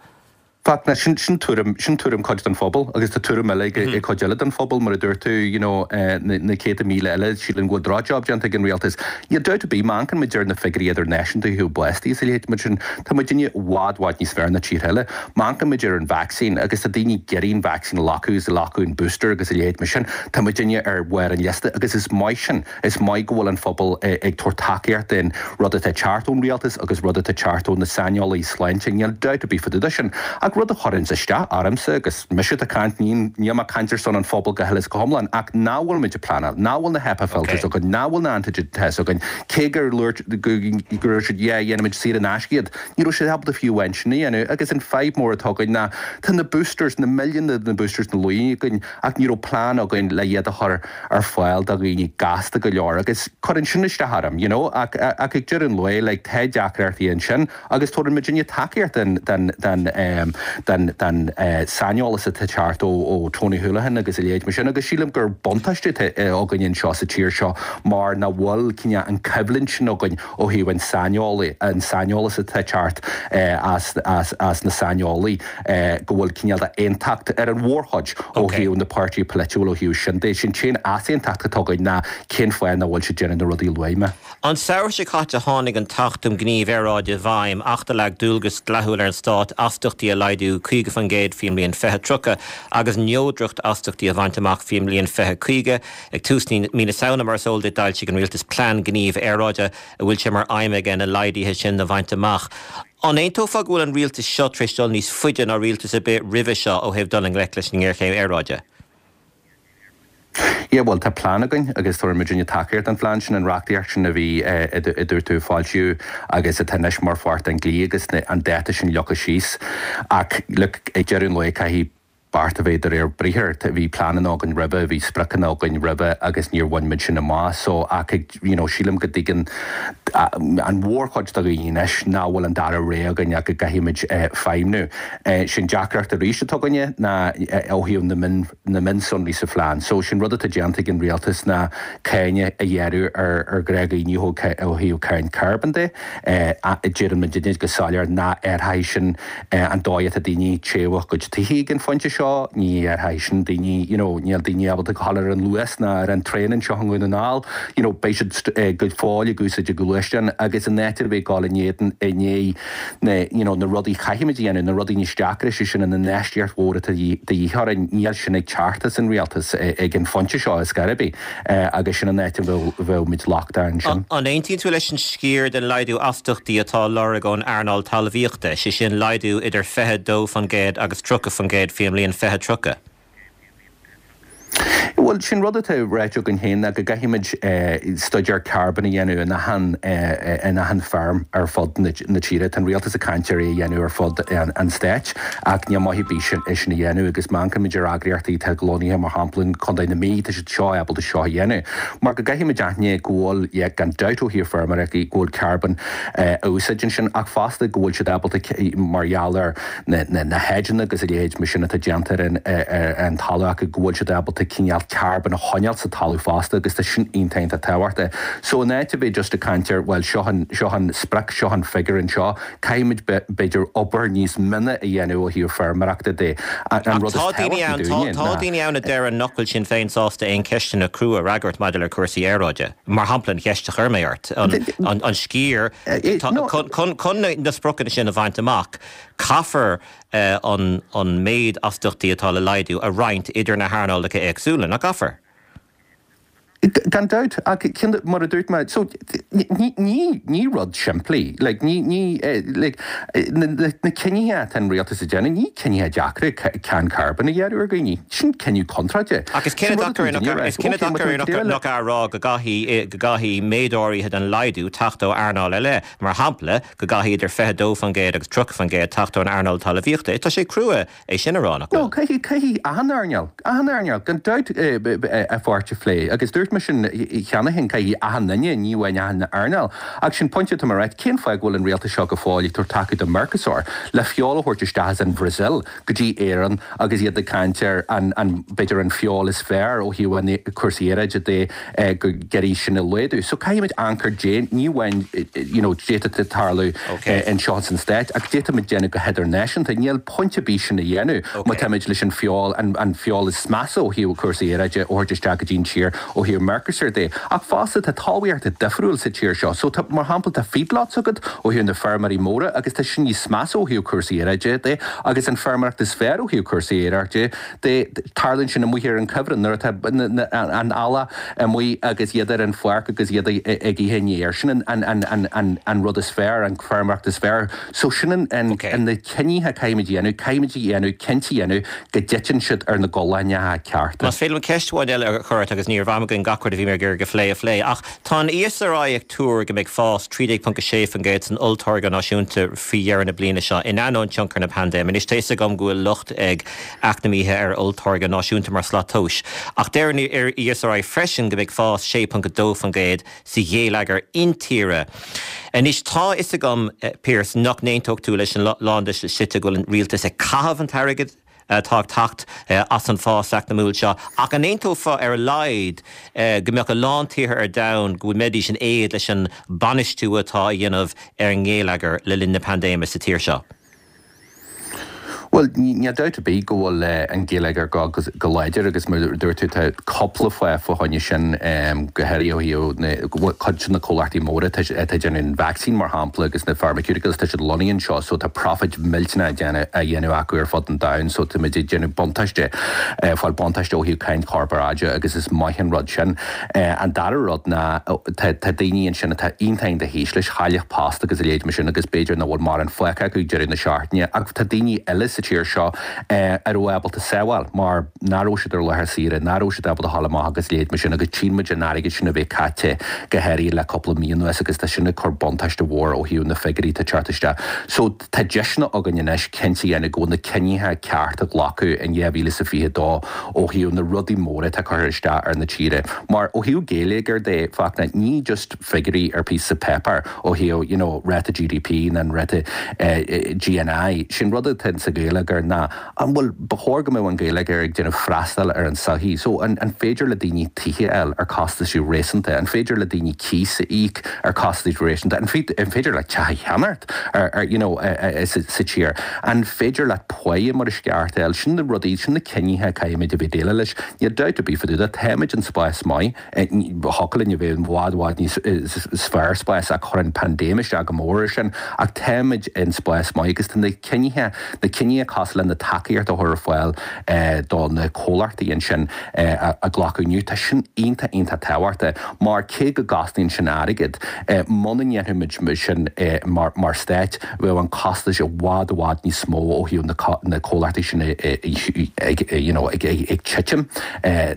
Fachtna, sin, sin tuairim, sin tuairim cuid den phobal agus tá tuairim eile ag, ag cuid eile den phobal, mar a dúirt tú, you know, na, na céadta míle eile, síleann go bhfuil drochjob déanta ag an rialtas. Níl dabht ar bith, má amharcann muid ar na figiúirí idirnáisiúnta ó thaobh bástaí is a leithéid mar sin, tá muidinne i bhfad, bhfad níos fearr ná tíortha eile. Má amharcann muid ar an vacsaín, agus tá daoine ag iarraidh an vacsaín a ghlacadh agus ag glacadh an booster agus a leithéid mar sin, tá muidinne ar bharr an liosta agus is maith sin. Is maith go bhfuil an phobal ag tabhairt tacaíocht don rud atá ag teacht ón rialtas agus rud atá ag teacht ó na saineolaí sláinte, níl dabht ar bith fá dtaobh de sin. Ach rud a chuireanns isteach ormsa, agus mise atá ag caint, níl mé ag caint ar son an phobail go huile is go hiomlán, ach nach bhfuil muid ag pleanáil, nach bhfuil na HEPA filters againn, nach bhfuil na antigen tests againn, cé gur dúirt, go raibh siad, yeah, dhéanfaimid saor in aisce iad. Ní raibh siad ábalta fiú amháin sin a dhéanamh agus an fadhb mór atá againn ná tá na boosters, na milliúin de na boosters ina luí againn ach ní raibh plean againn le iad a chur ar fáil do dhaoine gasta go leor agus cuireann sin isteach orm, you know ach ach ag deireadh an lae like tá deacrachtaí ansin agus tabharann muidinne tacaíocht den den den ehm den den eh saineolas atá ag teacht ó ó Tony Holohan agus a leithéid mar sin agus sílim gur buntáiste atá againn anseo sa tír seo mar nach bhfuil cineál an coimhlint sin againn ó thaobh an saineolaí, an saineolas atá ag teacht as, as, as na saineolaí, go bhfuil cineál de aontacht ar an mhórchuid ó thaobh na páirtithe polaitiúil ó thaobh sin de. Sin t-aon easaontacht atá againn ná cén fáth nach bhfuil siad déanamh na rudaí a luaigh mé. An samhradh seo caite tháinig an tAcht um Ghníomh Aeráide i bhfeidhm, acht a leag dualgas dleathúil ar an stát astachtaí a laghdú 50% faoin mbliain 2030 agus neodracht astachtaí a bhaint amach faoin mbliain 2050. Ag tús mí na Samhna, mar is eol duit, d'fhoilsigh an Rialtas Plean Gnímh Aeráide a bhfuil sé mar aidhm aige na laghduithe sin a bhaint amach. An aontófá go bhfuil an Rialtas seo tar éis dul níos faide ná rialtas ar bith roimhe seo ó thaobh dul i ngleic leis an ngéarchéim aeráide? Yeah, bhuel, tá plean againn agus tabharfaidh muidinne tacaíocht don phlean sin, an reachtaíocht sin a bhí, a dúirt tú, a foilsíodh agus atá anois mar pháirt den dlí agus an dáta sin leagtha síos. Ach, look, ag deireadh an lae caithfidh beart a bheith de réir briathair. Bhí pleananna againn roimhe, bhí spriocanna againn roimhe agus níor bhain muid sin amach. So, ach ag, you know, sílim go dtuigeann an mhórchuid de dhaoine anois nach bhfuil an dara rogha againn ach go gcaithfidh muid feidhmniú. Sin deacracht arís atá againne ná ó thaobh na mion, na mionsonraí sa phlean. So, sin rud atá déanta ag an rialtas ná cáin a ghearradh ar, ar ghnáthdhaoine ó thaobh cáin carbón de. Deireann muidinne go soiléir nach athróidh sin an dóigh atá daoine ag téamh a gcuid tithe ag an phointe seo, ní athróidh sin daoine, you know, níl daoine ábalta gabháil ar an Luas ná ar an traein anseo i nDún na nGall, you know, beidh siad go fóill ag úsáid a gluaisteán agus in áit ar bith ag gabháil in éadan, i ndiaidh na, you know, na rudaí a chaithfimid a dhéanamh, na rudaí níos deacra, sé sin an infheistíocht mhór atá de dhíth orainn, níl sin ag teacht as an rialtas ag an phointe seo ar scor ar bith. Agus sin an áit a bhfuil muid lochtach ansin. An aontaíonn tú leis an sciar den laghdú astachtaí atá á lorg ón earnáil talmhaíochta, sé sin laghdú idir 22% agus 30% faoin mbliain 2030? Bhuel, sin rud atá ráite againn féin ná go gcaithfimid staidéar carbóin a dhéanamh in achan, in achan feirm ar fud na tíre. Tá an rialtas ag caint ar é a dhéanamh ar fud an stáit ach níl maith ar bith sin, é sin a dhéanamh agus má amharcaimid ar eagraíochtaí atá lonnaithe mar shampla in Contae na Mí, tá siad seo ábalta seo a dhéanamh. Mar go gcaithfimid aithne go bhfuil, yeah, gan dabht ó thaobh feirmeoireachta, go bhfuil carbón á úsáid ansin ach fosta go bhfuil siad ábalta mar gheall ar na hedgeanna agus a leithéid mar sin atá déanta ar an talamh acu go bhfuil siad ábalta cineál carbón a choinneáil sa talamh fosta agus tá sin iontach iontach tábhachtach. So in áit a bheith just ag caint ar bhuel seo an seo an sprioc, seo an figiúr anseo, caithfimid b'fhéidir obair níos mine a dhéanamh ó thaobh feirmeoireachta de. An rud is tábhachtaí dúinne ná. Tá daoine ann a deireann nach bhfuil Sinn Féin sásta aon cheisteanna crua a fhreagairt maidir le cúrsaí aeráide. Mar shampla an cheist a chuir mé ort, an sciar chun na spriocanna sin a bhaint amach, caithfear an méid astaíochtaí atá le laghdú a roinnt idir na hearnálacha éagsúla, nach gcaithfear? Gan dabht, ach mar a dúirt mé, so ní ní rud simplí, like ní ní like na cinnithe atá an rialtas ag déanamh, ní cinnithe deacra cáin carbóin a ghearradh ar dhaoine, sin cinneadh contráilte. Ach is cinneadh deacair is cinneadh deacair nach ea a rá go gcaithfidh go gcaithfidh méid áirithe den laghdú teacht ó earnáil eile, mar shampla go gcaithfidh idir 22% agus 30% teacht ón earnáil talmhaíochta. Tá sé crua é sin a rá, nach bhfuil? No, caithfidh, caithfidh achan earnáil, achan earnáil, gan dabht, a pháirt a phlé. Agus dúirt mé sin cheana féin, caithfidh achan duine, ní amháin achan earnáil. Ach sin pointe atá mé a ráit, cén fáth go bhfuil an rialtas seo go fóill ag tabhairt taca do Mercosur le feoil a thabhairt isteach as an Bhrasaíl go dtí Éirinn agus iad ag caint ar an, an, b'fhéidir an feoil is fearr ó thaobh an cúrsaí aeráide de go gcuirfidh sin a laghdú. So caithfimid amharc ar dé, ní amháin you know d'fhéadfadh tarlú anseo san Stát ach d'fhéadfaimid déanamh go hidirnáisiúnta. Níl pointe ar bith sin a dhéanamh má táimid leis an feoil, an feoil is measa ó thaobh cúrsaí aeráide a thabhairt isteach go dtí an tír ó thaobh Mercosur de. Ach fosta tá talmhaíocht difriúil sa tír seo. So tá, mar shampla tá feedlots agat ó thaobh na feirmeoirí móra agus tá sin níos measa ó thaobh cúrsaí aeráide de agus an feirmeoireacht is fearr ó thaobh cúrsaí aeráide de. Tarlaíonn sin amuigh ar an cuibhreann nuair atá an eallach amuigh agus iad ar an pháirc agus iad ag ithe an fhéir. Sin an rud is fearr, an feirmeoireacht is fearr. So sin na cinnithe a caithfimid a dhéanamh, caithfimid a dhéanamh, cinnte a dhéanamh go dtiteann siad ar na gualainneacha cearta. Más féidir liom ceist amháin eile a chur ort agus ní raibh am againn gach rud a bhí mé ag iarraidh a phlé a phlé, ach tá an ESRI ag tuar go mbeidh fás 13.6% san olltáirgeadh náisiúnta faoi dheireadh na bliana seo, in ainneoin tionchar na paindéime. Anois tá 'fhios agam go bhfuil locht ag eacnamaithe ar olltáirgeadh náisiúnta mar shlat tomhais, ach deir an ESRI freisin go mbeidh fás 6.2% sa gheilleagar intíre. Anois, tá 'fhios agam, Pearse, nach n-aontódh tú leis an lán de na slite go bhfuil an rialtas ag caitheamh an t-airgead atá ag teacht as an bhfás eacnamúil seo, ach an aontófá ar a laghad go mbeadh a lán tíortha ar domhan go mbeidís in éad leis an bainistiú atá á dhéanamh ar an ngeilleagar le linn na paindéime sa tír seo? Bhuel, níl dabht ar bith go bhfuil an geilleagar ag dul go láidir agus mar a dúirt tú tá cúpla fáth fá choinne sin, go háirithe ó thaobh cuid de na comhlachtaí móra atá ag déanamh an vacsaín mar shampla agus na pharmaceuticals, tá siad lonnaithe anseo so tá profit millteanach á dhéanamh acu ar fud an domhain so táimid ag déanamh buntáiste, fáil buntáiste ó thaobh cáin chorparáide agus is maith an rud sin. An dara rud ná tá daoine ansin atá iontach iontach ísle, chaill post agus a leithéid mar sin agus b'fhéidir nach bhfuil mórán fágtha acu ag deireadh na seachtaine ach tá daoine eile sa tír seo a raibh ábalta sábháil mar nach raibh siad ar laetha saoire, nach raibh siad ábalta dhul amach agus a leithéid mar sin agus tchíonn muid an airgead sin a bheith caite go háirithe le cúpla mí anuas agus tá sin ag cur buntáiste mhór ó thaobh na figiúirí atá ag teacht isteach. So tá deiseanna againn anois cinnte a dhéanamh go bhfuil na cinnithe cearta a glacadh in 2022 ó thaobh na rudaí móra atá curtha isteach ar na tíre. Mar ó thaobh geilleagair de, Fachtna, ní just figiúirí ar píosa páipéir ó thaobh you know ráta GDP nó an ráta GNI. Sin rud atá sa gheilleagar ná an bhfuil, ba chóir go mbeadh an geilleagar ag déanamh freastal ar an sochaí. So an an féidir le daoine tithe a fháil ar costais réasúnta? An féidir le daoine cíos a íoc ar costais réasúnta? An an féidir leat teach a cheannacht ar ar you know sa sa tír? An féidir leat páighe mar is ceart a fháil? Sin na rudaí, sin na cinnithe a caithfimid a bheith déileáil leis. Níl dabht ar bith fá dtaobh de, táimid in spás maith. Thiocfadh linn a bheith i bhfad bhfad níos fearr spás ach chuir an paindéim isteach go mór ar sin ach táimid in spás maith agus tá na cinnithe, na cinnithe. cosúil le na tacaíocht a chur ar fáil do na comhlachtaí ansin a glacadh inniu, tá sin iontach, iontach tábhachtach mar cé go gcosnaíonn sin airgead, muna ndéanfadh muid sin mar stát, bheadh an costas i bhfad, i bhfad níos mó ó thaobh na comhlachtaí sin you know ag titim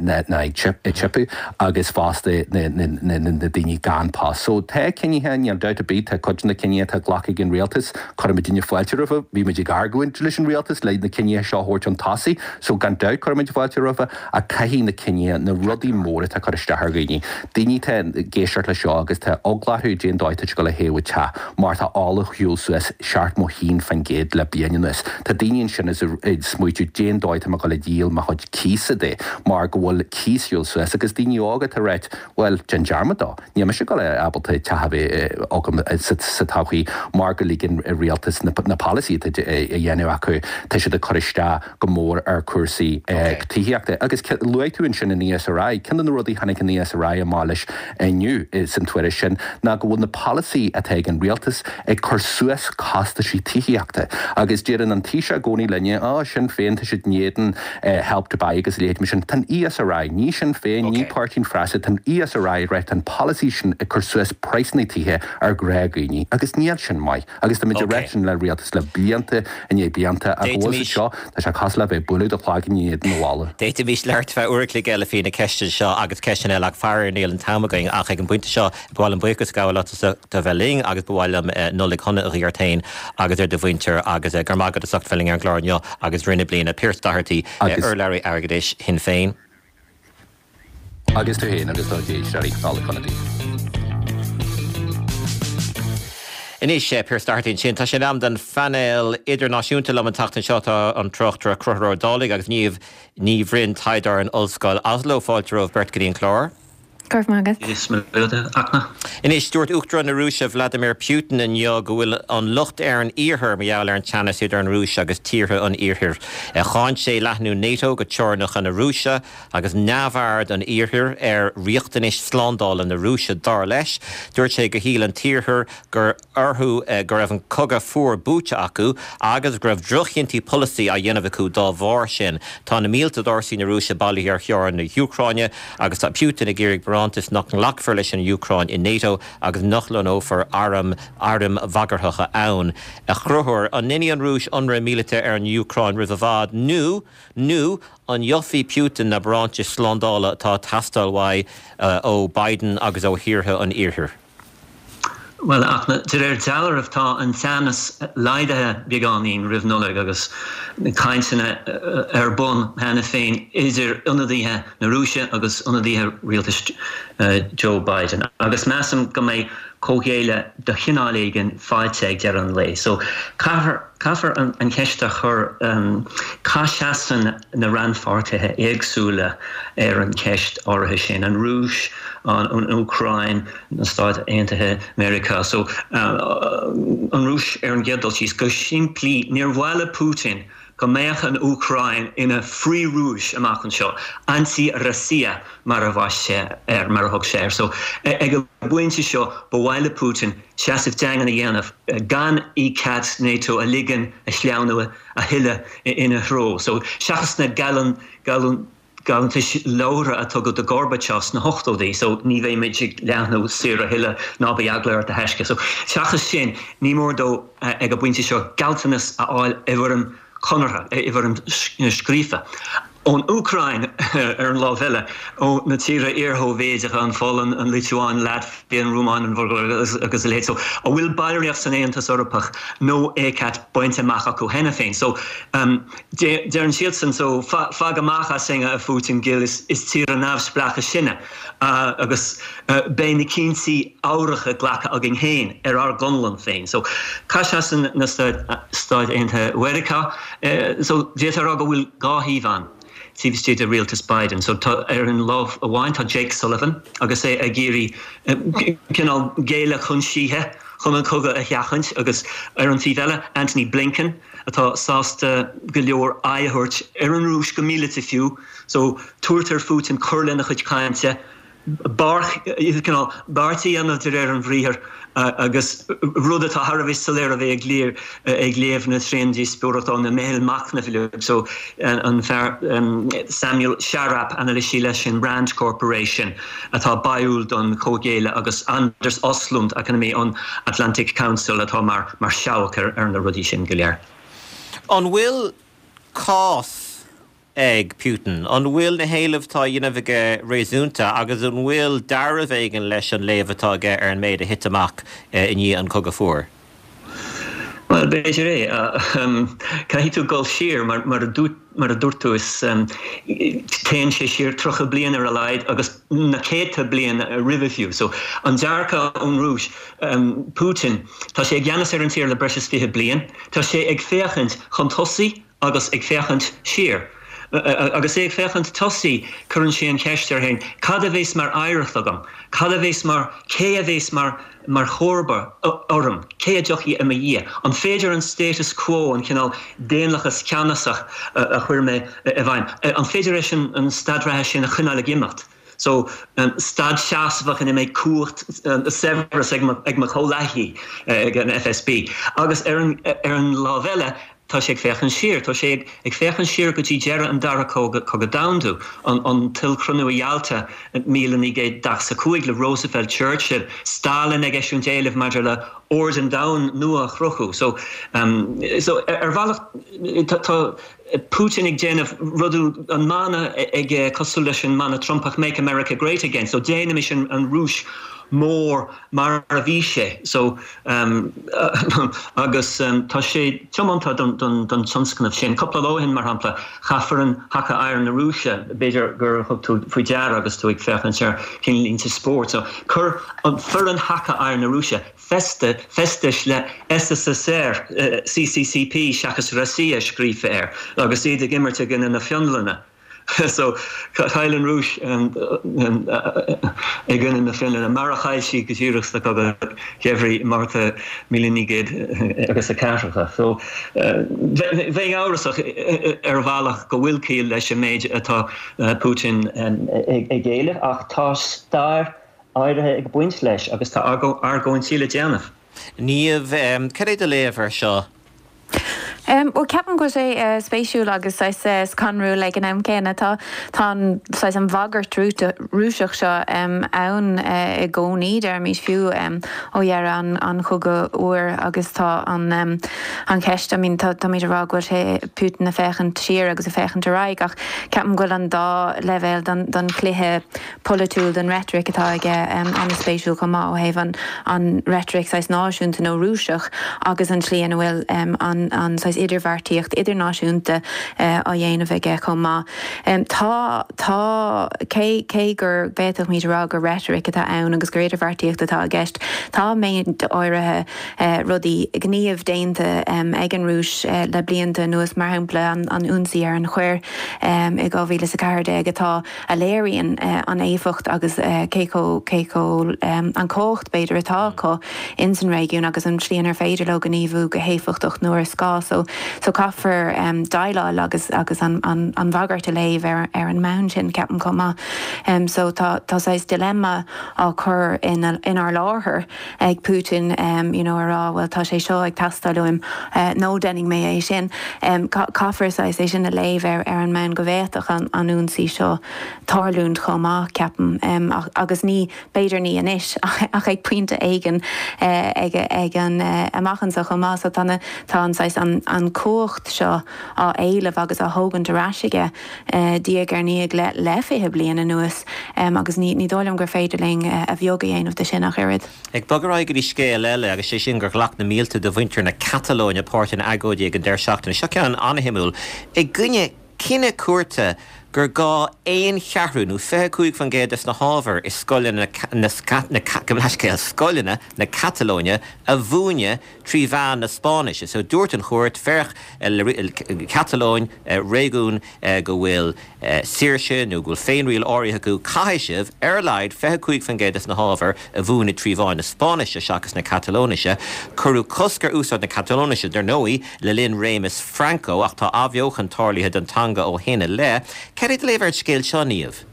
ná ag tipeadh agus fosta na daoine gan post. So tá cinnithe, níl dabht ar bith, tá cuid de na cinnithe atá glactha ag an rialtas, cuirimidne fáilte roimhe, bhí muid ag argóint leis an rialtas le na cinnithe seo a thabhairt chun tosaigh, so gan dabht cuirimid fáilte roimhe ach caithfidh na cinnithe, na rudaí móra atá ag cur isteach ar dhaoine, daoine atá ag éisteacht leis seo agus tá eagla orthu cén dóigh atá siad ag dul a théamh an teach mar tá ola ar shiúl suas 71% le bliain anuas. Tá daoine ansin is ag smaoitiú cén dóigh atá mé ag dul a dhíol mo chuid cíosa de mar go bhfuil cíos ar shiúl suas agus daoine óga atá ag ráit bhuel déan dearmad dó, níl mise ag dul a ábalta teach a bheith agam sa todhchaí mar go ligeann rialtas na polasaithe atá a dhéanamh acu, tá siad ag cur isteach go mór ar chúrsaí tithíochta. Agus luaigh tú ansin an ESRI. Ceann de na rudaí a tháinig an ESRI amach leis inniu san tuairisc sin ná go bhfuil na polasaithe atá ag an rialtas ag cur suas costaisí tithíochta. Agus deireann an Taoiseach i gcónaí linne, Á, Sinn Féin, tá siad in éadan Help to Buy agus a leithéid mar sin. Tá an ESRI, ní Sinn Féin, ní Páirtí an Phreasa, tá an ESRI ag rá tá an polasaí sin ag cur suas praghsanna tithe ar ghnáthdhaoine agus níl sin maith. Agus tá muid ag rá sin le rialtas le blianta i ndiaidh blianta ach go bhfuil siad seo, tá sé cosúil le bheith ag bualadh do chloigeann in éadan an bhalla. D'fhéadfaimis labhairt ar feadh uair a chloig eile faoi na ceisteanna seo agus ceisteanna eile ach faraor níl an t-am againn ach ag an bpointe seo ba mhaith liom buíochas a ghabháil leat as ucht a bheith linn agus ba mhaith liom Nollaig shona a ghuí ort féin agus ar do mhuintir agus go raibh maith agat as ucht bheith linn ar an gclár inniu agus i rith na bliana. Pearse Doherty, urlabhraí airgeadais Shinn Féin. Agus tú féin agus do éisteoirí, Nollaig shona daoibh. Anois, Pearse Doherty ansin. Tá sé in am don phainéal idirnáisiúnta liom an tseachtain seo. Tá an tráchtaire Conchúr Ó Dálaigh agus Niamh Ní Bhroin, taighdeoir in Ollscoil Oslo. Fáilte romhaibh beirt go dtí an clár. Go raibh maith agat. Anois, dúirt Uachtarán na Rúise Vladimir Putin inniu go bhfuil an locht ar an Iarthar mar gheall ar an teannas idir an Rúis agus tíortha an Iarthair. Cháin sé leathnú NATO go teorainneacha na Rúise agus neamhaird an Iarthair ar riachtanais slándála na Rúise, dar leis. Dúirt sé gur shíl an tIarthar gur orthu go raibh an cogadh fuar buaite acu agus go raibh droch-chinntí polasaí á dhéanamh acu dá bharr sin. Tá na mílte d'fhórsaí na Rúise bailithe ar theorainn na hÚcráine agus tá Putin ag iarraidh barántais nach nglacfar leis an Úcráin i NATO agus nach lonnófar airm airm bhagarthacha ann. A Chonchúir, an ndéanfaidh an Rúis ionradh míleata ar an Úcráin roimh i bhfad nó nó an gheobhaidh Putin na barántais slándála atá ag teastáil uaidh ó Biden agus ó thíortha an Iarthair? Bhuel, ach de réir dealraimh tá an teannas laghdaithe beagáinín roimh Nollaig agus cainteanna ar bun cheana féin idir ionadaithe na Rúise agus ionadaithe rialtas Joe Biden. Agus measaim go mbeidh comhghéilleadh de chineál éigin faighte ag deireadh an lae. So caithfear caithfear an cheist a chur cá seasann na rannpháirtithe éagsúla ar an cheist áirithe sin, an Rúis, an Úcráin, na Stáit Aontaithe Meiriceá. So, an Rúis ar an gcéad dul síos, go simplí, níor mhaith le Putin go mbeadh an Úcráin ina frith-Rúis amach anseo, anti-Rossiya mar a bhaist sé air, mar a thug sé air. So, ag an bpointe seo, ba mhaith le Putin seasamh daingean a dhéanamh, gan ECAT NATO a ligean a shleamhnú a thuilleadh ina threo. So, seachas na geall, geall, Gealltanais labhartha a tugadh do Gorbachev sna hochtóidí, so ní bheidh muid ag leathnú soir a thuilleadh, ná bíodh eagla ort a thaisce. So seachas sin, ní mór dó ag an bpointe seo gealltanas a fháil i bhfoirm conartha, i bhfoirm scríofa. Ón Úcráin ar an lámh eile, ó na tíortha iar-Shóivéideacha, an Pholainn, an Liotuáin, Laitvia, an Rúmáin, an Bhulgáir agus a leithéid, so a bhfuil ballraíocht san Aontas Eorpach nó ECAT bainte amach acu cheana féin. So Deireann siadsan so, Fag amach asainn, a Phutin ghil, is tíortha neamhspleácha sinne agus beidh na cinntí fabhracha glactha againn féin ar ár gconlán féin. So, cá seasann na Stáit Aontaithe Mheiriceá? So, d'fhéadfá a rá go bhfuil dhá thaobh ann taobh istigh de rialtas Biden. So, tá, ar an lámh amháin, tá Jake Sullivan agus é ag iarraidh cineál géilleadh chun síthe chun an cogadh a sheachaint agus ar an taobh eile, Antony Blinken, atá sásta go leor aghaidh a thabhairt ar an Rúis, go míleata fiú, so tabhairt ar Phutin cur lena chuid cainte. Cineál beart a dhéanamh de réir an bhriathair agus rud atá thar a bheith soiléir a bheith ag léamh na tréandíospóireachta ó na meithil machnaimh uilig. So an fear Samuel Charap, anailísí leis an Rand Corporation atá báúil don chomhghéilleadh agus Anders Östlund, eacnamaí ón Atlantic Council atá mar seabhac ar na rudaí sin go léir. An bhfuil cás ag Putin? An bhfuil na héilimh atá á dhéanamh aige réasúnta agus an bhfuil dealramh éigin leis an léamh atá aige ar an méid a thit amach i ndiaidh an Chogadh Fuar? Bhuel, b'fhéidir é. Caithfidh tú dul siar, mar a dúirt tú, is téann sé siar 30 bliain ar a laghad agus na céadta bliain roimhe fiú. So, an dearcadh ón Rúis, Putin, tá sé i gceannas ar an tír le breis is 20 bliain, tá sé ag féachaint chun tosaigh, agus ag féachaint siar. Agus é ag féachaint tosaigh, cuireann sé an cheist air féin, cad a bheas mar oidhreacht agam? Cad a bheas mar, cé a bheas mar, mar chomharba orm? Cé a dtiocfaidh i mo dhiaidh? An féidir an status quo, an cineál daonlathas ceannasach a chuir mé i bhfeidhm, an féidir leis an staid reatha sin a choinneáil ag imeacht? So, staid seasmhach ina mbeidh cumhacht, saibhreas ag mo chomhleacaithe ag an FSB. Agus ar an, ar an lámh eile, tá sé ag féachaint siar. Tá sé ag féachaint siar go dtí deireadh an Dara Cogadh Domhanda, an t-ollchruinniú i Yalta 1945 le Roosevelt, Churchill, Stalin ag eisiúint éilimh maidir le ord an domhain nua a chruthú. So, so ar bhealach tá Putin ag déanamh rudaí, an mana aige cosúil leis an mana Trumpach 'Make America Great Again', so déanaimis an Rúis mór mar a bhí sé. So agus tá sé tiomanta don tionscnamh sin. Cúpla lá ó shin, mar shampla, chaith foireann haca oighir na Rúise, b'fhéidir gur thug tú faoi deara agus tú ag féachaint ar cinnlínte spóirt, so chuir an foireann haca oighir na Rúise, feste, feistis le SSSR, CCCP seachas Rossiya scríofa air agus iad ag imirt i gcoinne na Fionlainne. So, chaill an Rúis i gcoinne na Fionlainne, mar a chaill sí go díreach sa Chogadh Geimhridh, Márta 1900 agus a ceathracha. So, bheinn amhrasach ar bhealach go bhfuil ciall leis an méid atá Putin ag éileamh ach tá stair áirithe ag baint leis agus tá argóintí le déanamh. Niamh, cad é do léamh air seo? Bhuel, ceapaim go bhfuil sé spéisiúil agus saghas scanrúil ag an am céanna. Tá tá an saghas an bhagairt Rúiseach seo ann i gcónaí, deirimis, fiú ó dheireadh an an Chogaidh Fhuair agus tá an an cheist, I mean tá táimid ag rá go bhfuil sé Putin ag féachaint siar agus ag féachaint ar aghaidh ach ceapaim go bhfuil an dá leibhéal don don chluiche polaitiúil den reitric atá aige an-spéisiúil chomh maith ó thaobh an an reitric saghas náisiúnta nó Rúiseach agus an tslí ina bhfuil an an saghas idirbheartaíocht idirnáisiúnta á dhéanamh aige chomh maith. Tá tá cé cé gur bhféadfaimid a rá gur reitric atá ann agus gur idirbheartaíocht atá i gceist, tá méid áirithe rudaí gníomh déanta ag an Rúis le blianta anuas, mar shampla an an ionsaí ar an Choir i 2014 atá a léiríonn an éifeacht agus cé chomh, cé chomh, an chumhacht b'fhéidir atá acu ins an réigiún agus an tslí inar féidir leo gníomhú go héifeachtach nuair is gá. So, so caithfear déileáil agus, agus an, an, an bhagairt a léamh ar, ar an mbonn sin, ceapaim chomh maith. So tá, tá saghas dilemma á chur ina, inár láthair. ag Putin you know a rá bhuel tá sé seo ag teastáil uaim nó déanfaidh mé é sin. Caithfear saghas é sin a léamh ar an mbonn go bhféadfadh an ionsaí seo tarlúint chomh maith, ceapaim. Agus ní, b'fhéidir ní anois ach ag pointe éigin ag ag an amach anseo chomh maith. So tá na, tá an saghas an an cumhacht seo á éileamh agus á thógaint ar ais aige diaidh ar ndiaidh le le 20 bliain anuas agus ní ní dóigh liom gur féidir linn a bheag a dhéanamh de sin ach oiread. Ag bogadh ar aghaidh go dtí scéal eile agus sé sin gur ghlac na mílte de mhuintir na Catalóine páirt in agóidí ag an deireadh seachtaine. Seo ceann an-shuimiúil. I gcoinne cinneadh cúirte gur gá aon cheathrú nó 25% des na hábhair i scoileanna na scoileanna na Catalóine a mhúineadh trí mheán na Spáinnise. So dúirt an chúirt, féach, Catalóin, réigiún go bhfuil saoirse nó go bhfuil féinriail áirithe acu, caithfidh sibh, ar a laghad, 25% des na hábhair a mhúineadh trí mheán na Spáinnise seachas na Catalóinise. Cuireadh cosc ar úsáid na Catalóinise, dar ndóigh, le linn réimeas Franco ach tá athbheochan tarlaithe don teanga ó shin i leith. Cad é do léamh ar an scéal seo, Niamh?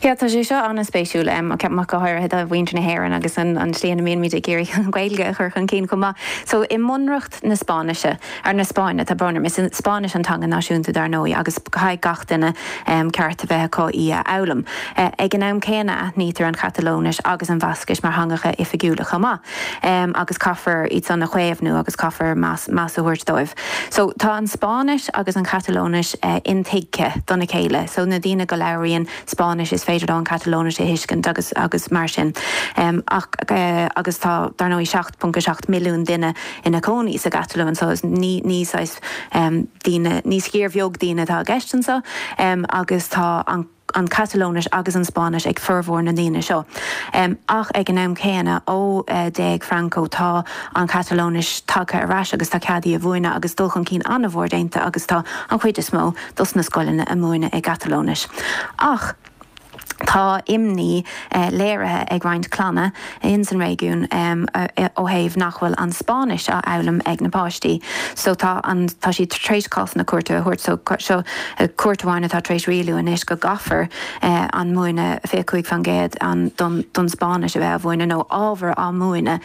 Yeah, tá sé seo an-spéisiúil, ceapaim ach go háirithe do mhuintir na hÉireann agus an tslí ina mbímid ag iarraidh an Ghaeilge a chur chun cinn chomh maith. So, i mBunreacht na Spáinnise, ar na Spáinne, tá brón orm, is Spáinnis an teanga náisiúnta dar ndóigh agus caithfidh gach duine ceart a bheith acu í a fhoghlaim. Ag an am céanna aithnítear an Chatalóinis agus an Bhascais mar theangacha oifigiúla chomh maith agus caithfear iad san a chaomhnú agus caithfear meas a thabhairt dóibh. So tá an Spáinnis agus an Chatalóinis intuigthe dona chéile so na daoine go labhraíonn Spáinnis is féidir leo an Chatalóinis a thuiscint agus agus mar sin. Ach agus tá dar ndóigh 7.7 milliún duine ina cónaí sa gCatalóin so ní ní saghas daoine ní sciar bheag daoine atá i gceist anseo agus tá an an Chatalóinis agus an Spáinnis ag formhór na ndaoine seo. Ach ag an am céanna, ó d'éag Franco, tá an Chatalóinis tagtha ar ais agus tá cead í a mhúineadh agus dul chun cinn an-mhór déanta agus tá an chuid is mó dos na scoileanna ag múineadh i gCatalóinis. Ach tá imní léirithe ag roinnt clanna ins an réigiún ó thaobh nach bhfuil an Spáinnis á fhoghlaim ag na páistí. So tá an, tá siad tar éis cásanna cúirte a thabhairt so seo cúirt amháin atá tar éis rialú anois go gcaithfear an múineadh 25% an don don Spáinnis a bheith á mhúineadh nó ábhar á múineadh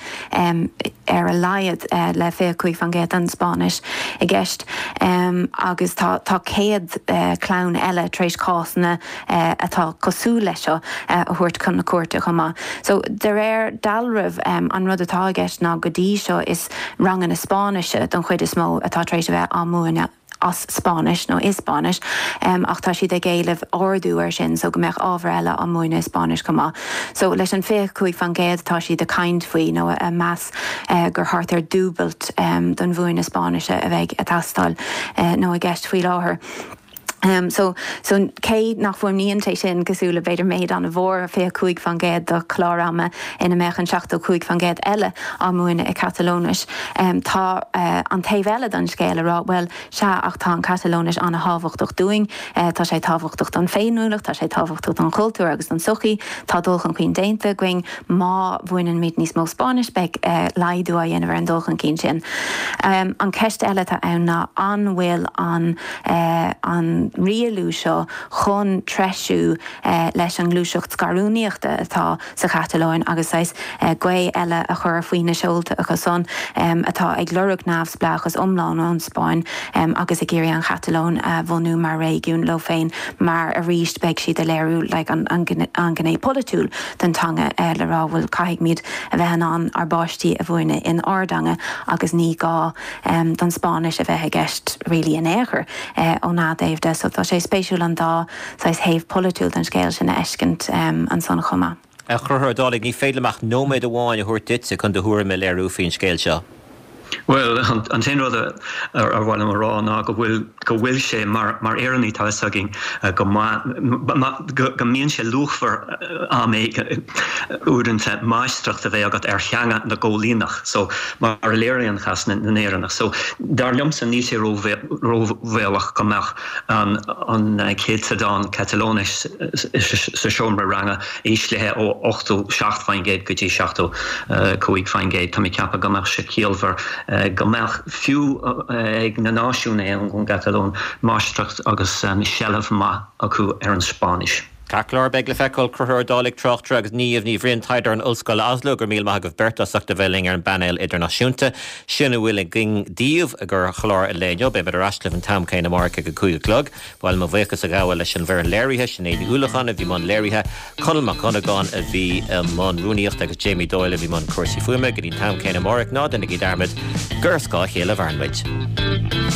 ar a laghad le 25% den Spáinnis i gceist agus tá tá 100 clann eile tar éis cásanna atá cosúil leis seo a thabhairt chun na cúirte chomh maith. So, de réir dealraimh, an rud atá i gceist ná go dtí seo is ranganna Spáinnise don chuid is mó atá tar éis a bheith á múineadh as Spáinnis nó i Spáinnis ach tá siad ag éileamh ardú air sin so go mbeadh ábhar eile á múineadh i Spáinnis chomh maith. So, leis an 25% atá siad ag caint faoi nó ag meas gur thart ar dúbailt don mhúineadh Spáinnise a bheidh ag teastáil nó i gceist faoi láthair. So, so cé nach bhfuaimníonn sé sin cosúil le b'fhéidir méid an-mhór, 25% de chlár ama ina mbeadh an 75% eile á múineadh i Catalóinis, tá an taobh eile den scéal ag rá, bhuel, sea, ach tá an Chatalóinis an-thábhachtach dúinn, tá sé tábhachtach don féiniúlacht, tá sé tábhachtach don chultúr agus don tsochaí, tá dul chun cinn déanta againn, má mhúineann níos mó Spáinnis beidh laghdú á dhéanamh ar an dul chun cinn sin. An ceist eile atá ann ná an bhfuil an an rialú seo chun treisiú leis an ngluaiseacht scarúnaíochta atá sa Chatalóin agus saghas gaoth eile a chur faoi na seolta acu san atá ag lorg neamhspleáchas iomlán ón Spáinn agus ag iarraidh an Chatalóin a bhunú mar réigiún leo féin mar arís beidh siad ag léiriú like an ghné polaitiúil den teanga le rá bhuel caithfidh muid a bheith in ann ár bpáistí a mhúineadh in ár dteanga agus ní gá don Spáinnis a bheith i gceist really in aon chor óna dtaobh de. So tá sé spéisiúil an dá saghas thaobh polaitiúil den scéal sin a fheiscint ansan chomh maith. A Chonchúir Ó Dálaigh, ní féidir liom ach nóiméad amháin a thabhairt duitse chun do thuairim a léiriú faoin scéal seo. Bhuel, an t-aon rud ar mhaith liom a rá ná go bhfuil, go bhfuil sé, mar, mar Éireannaigh tá fhios againn go maith, go mbíonn sé luachmhar am éigin, uaireanta, máistreacht a bheith agat ar theanga na gcoilíneach, so, mar a léiríonn cás na nÉireannach. So, dar liomsa, níl sé róbhaolach go mbeadh an, an céatadán Catalóinis sa seomra ranga íslithe ó 87% go dtí 75%. Tá mé ag ceapadh go mbeadh sé ciallmhar go mbeadh, fiú ag na náisiúnaithe ón gCatalóin, máistreacht agus seilbh maith acu ar an Spáinnis. Ceart go leor, beidh le feiceáil. Conchúr Ó Dálaigh, tráchtaire, agus Niamh Ní Bhriain, taighdeoir in Ollscoil Oslo, go raibh míle maith agaibh beirt as ucht a bheith linn ar an bpainéal idirnáisiúnta. Sin a bhfuil againn daoibh i gclár an lae inniu. Beimid ar ais libh an t-am céanna amárach ag a 5 a chlog. Ba mhaith liom mo bhuíochas a ghabháil leis an bhfoireann léirithe, Sinéad Ní Uallacháin a bhí i mbun léirithe, Conall Mac Dhonnagáin a bhí i mbun rúnaíochta agus Jamie Doyle a bhí i mbun cúrsaí fuaime. Go dtí an t-am céanna amárach, ná déanaigí dearmad gur ar scáth a chéile a mhaireann muid.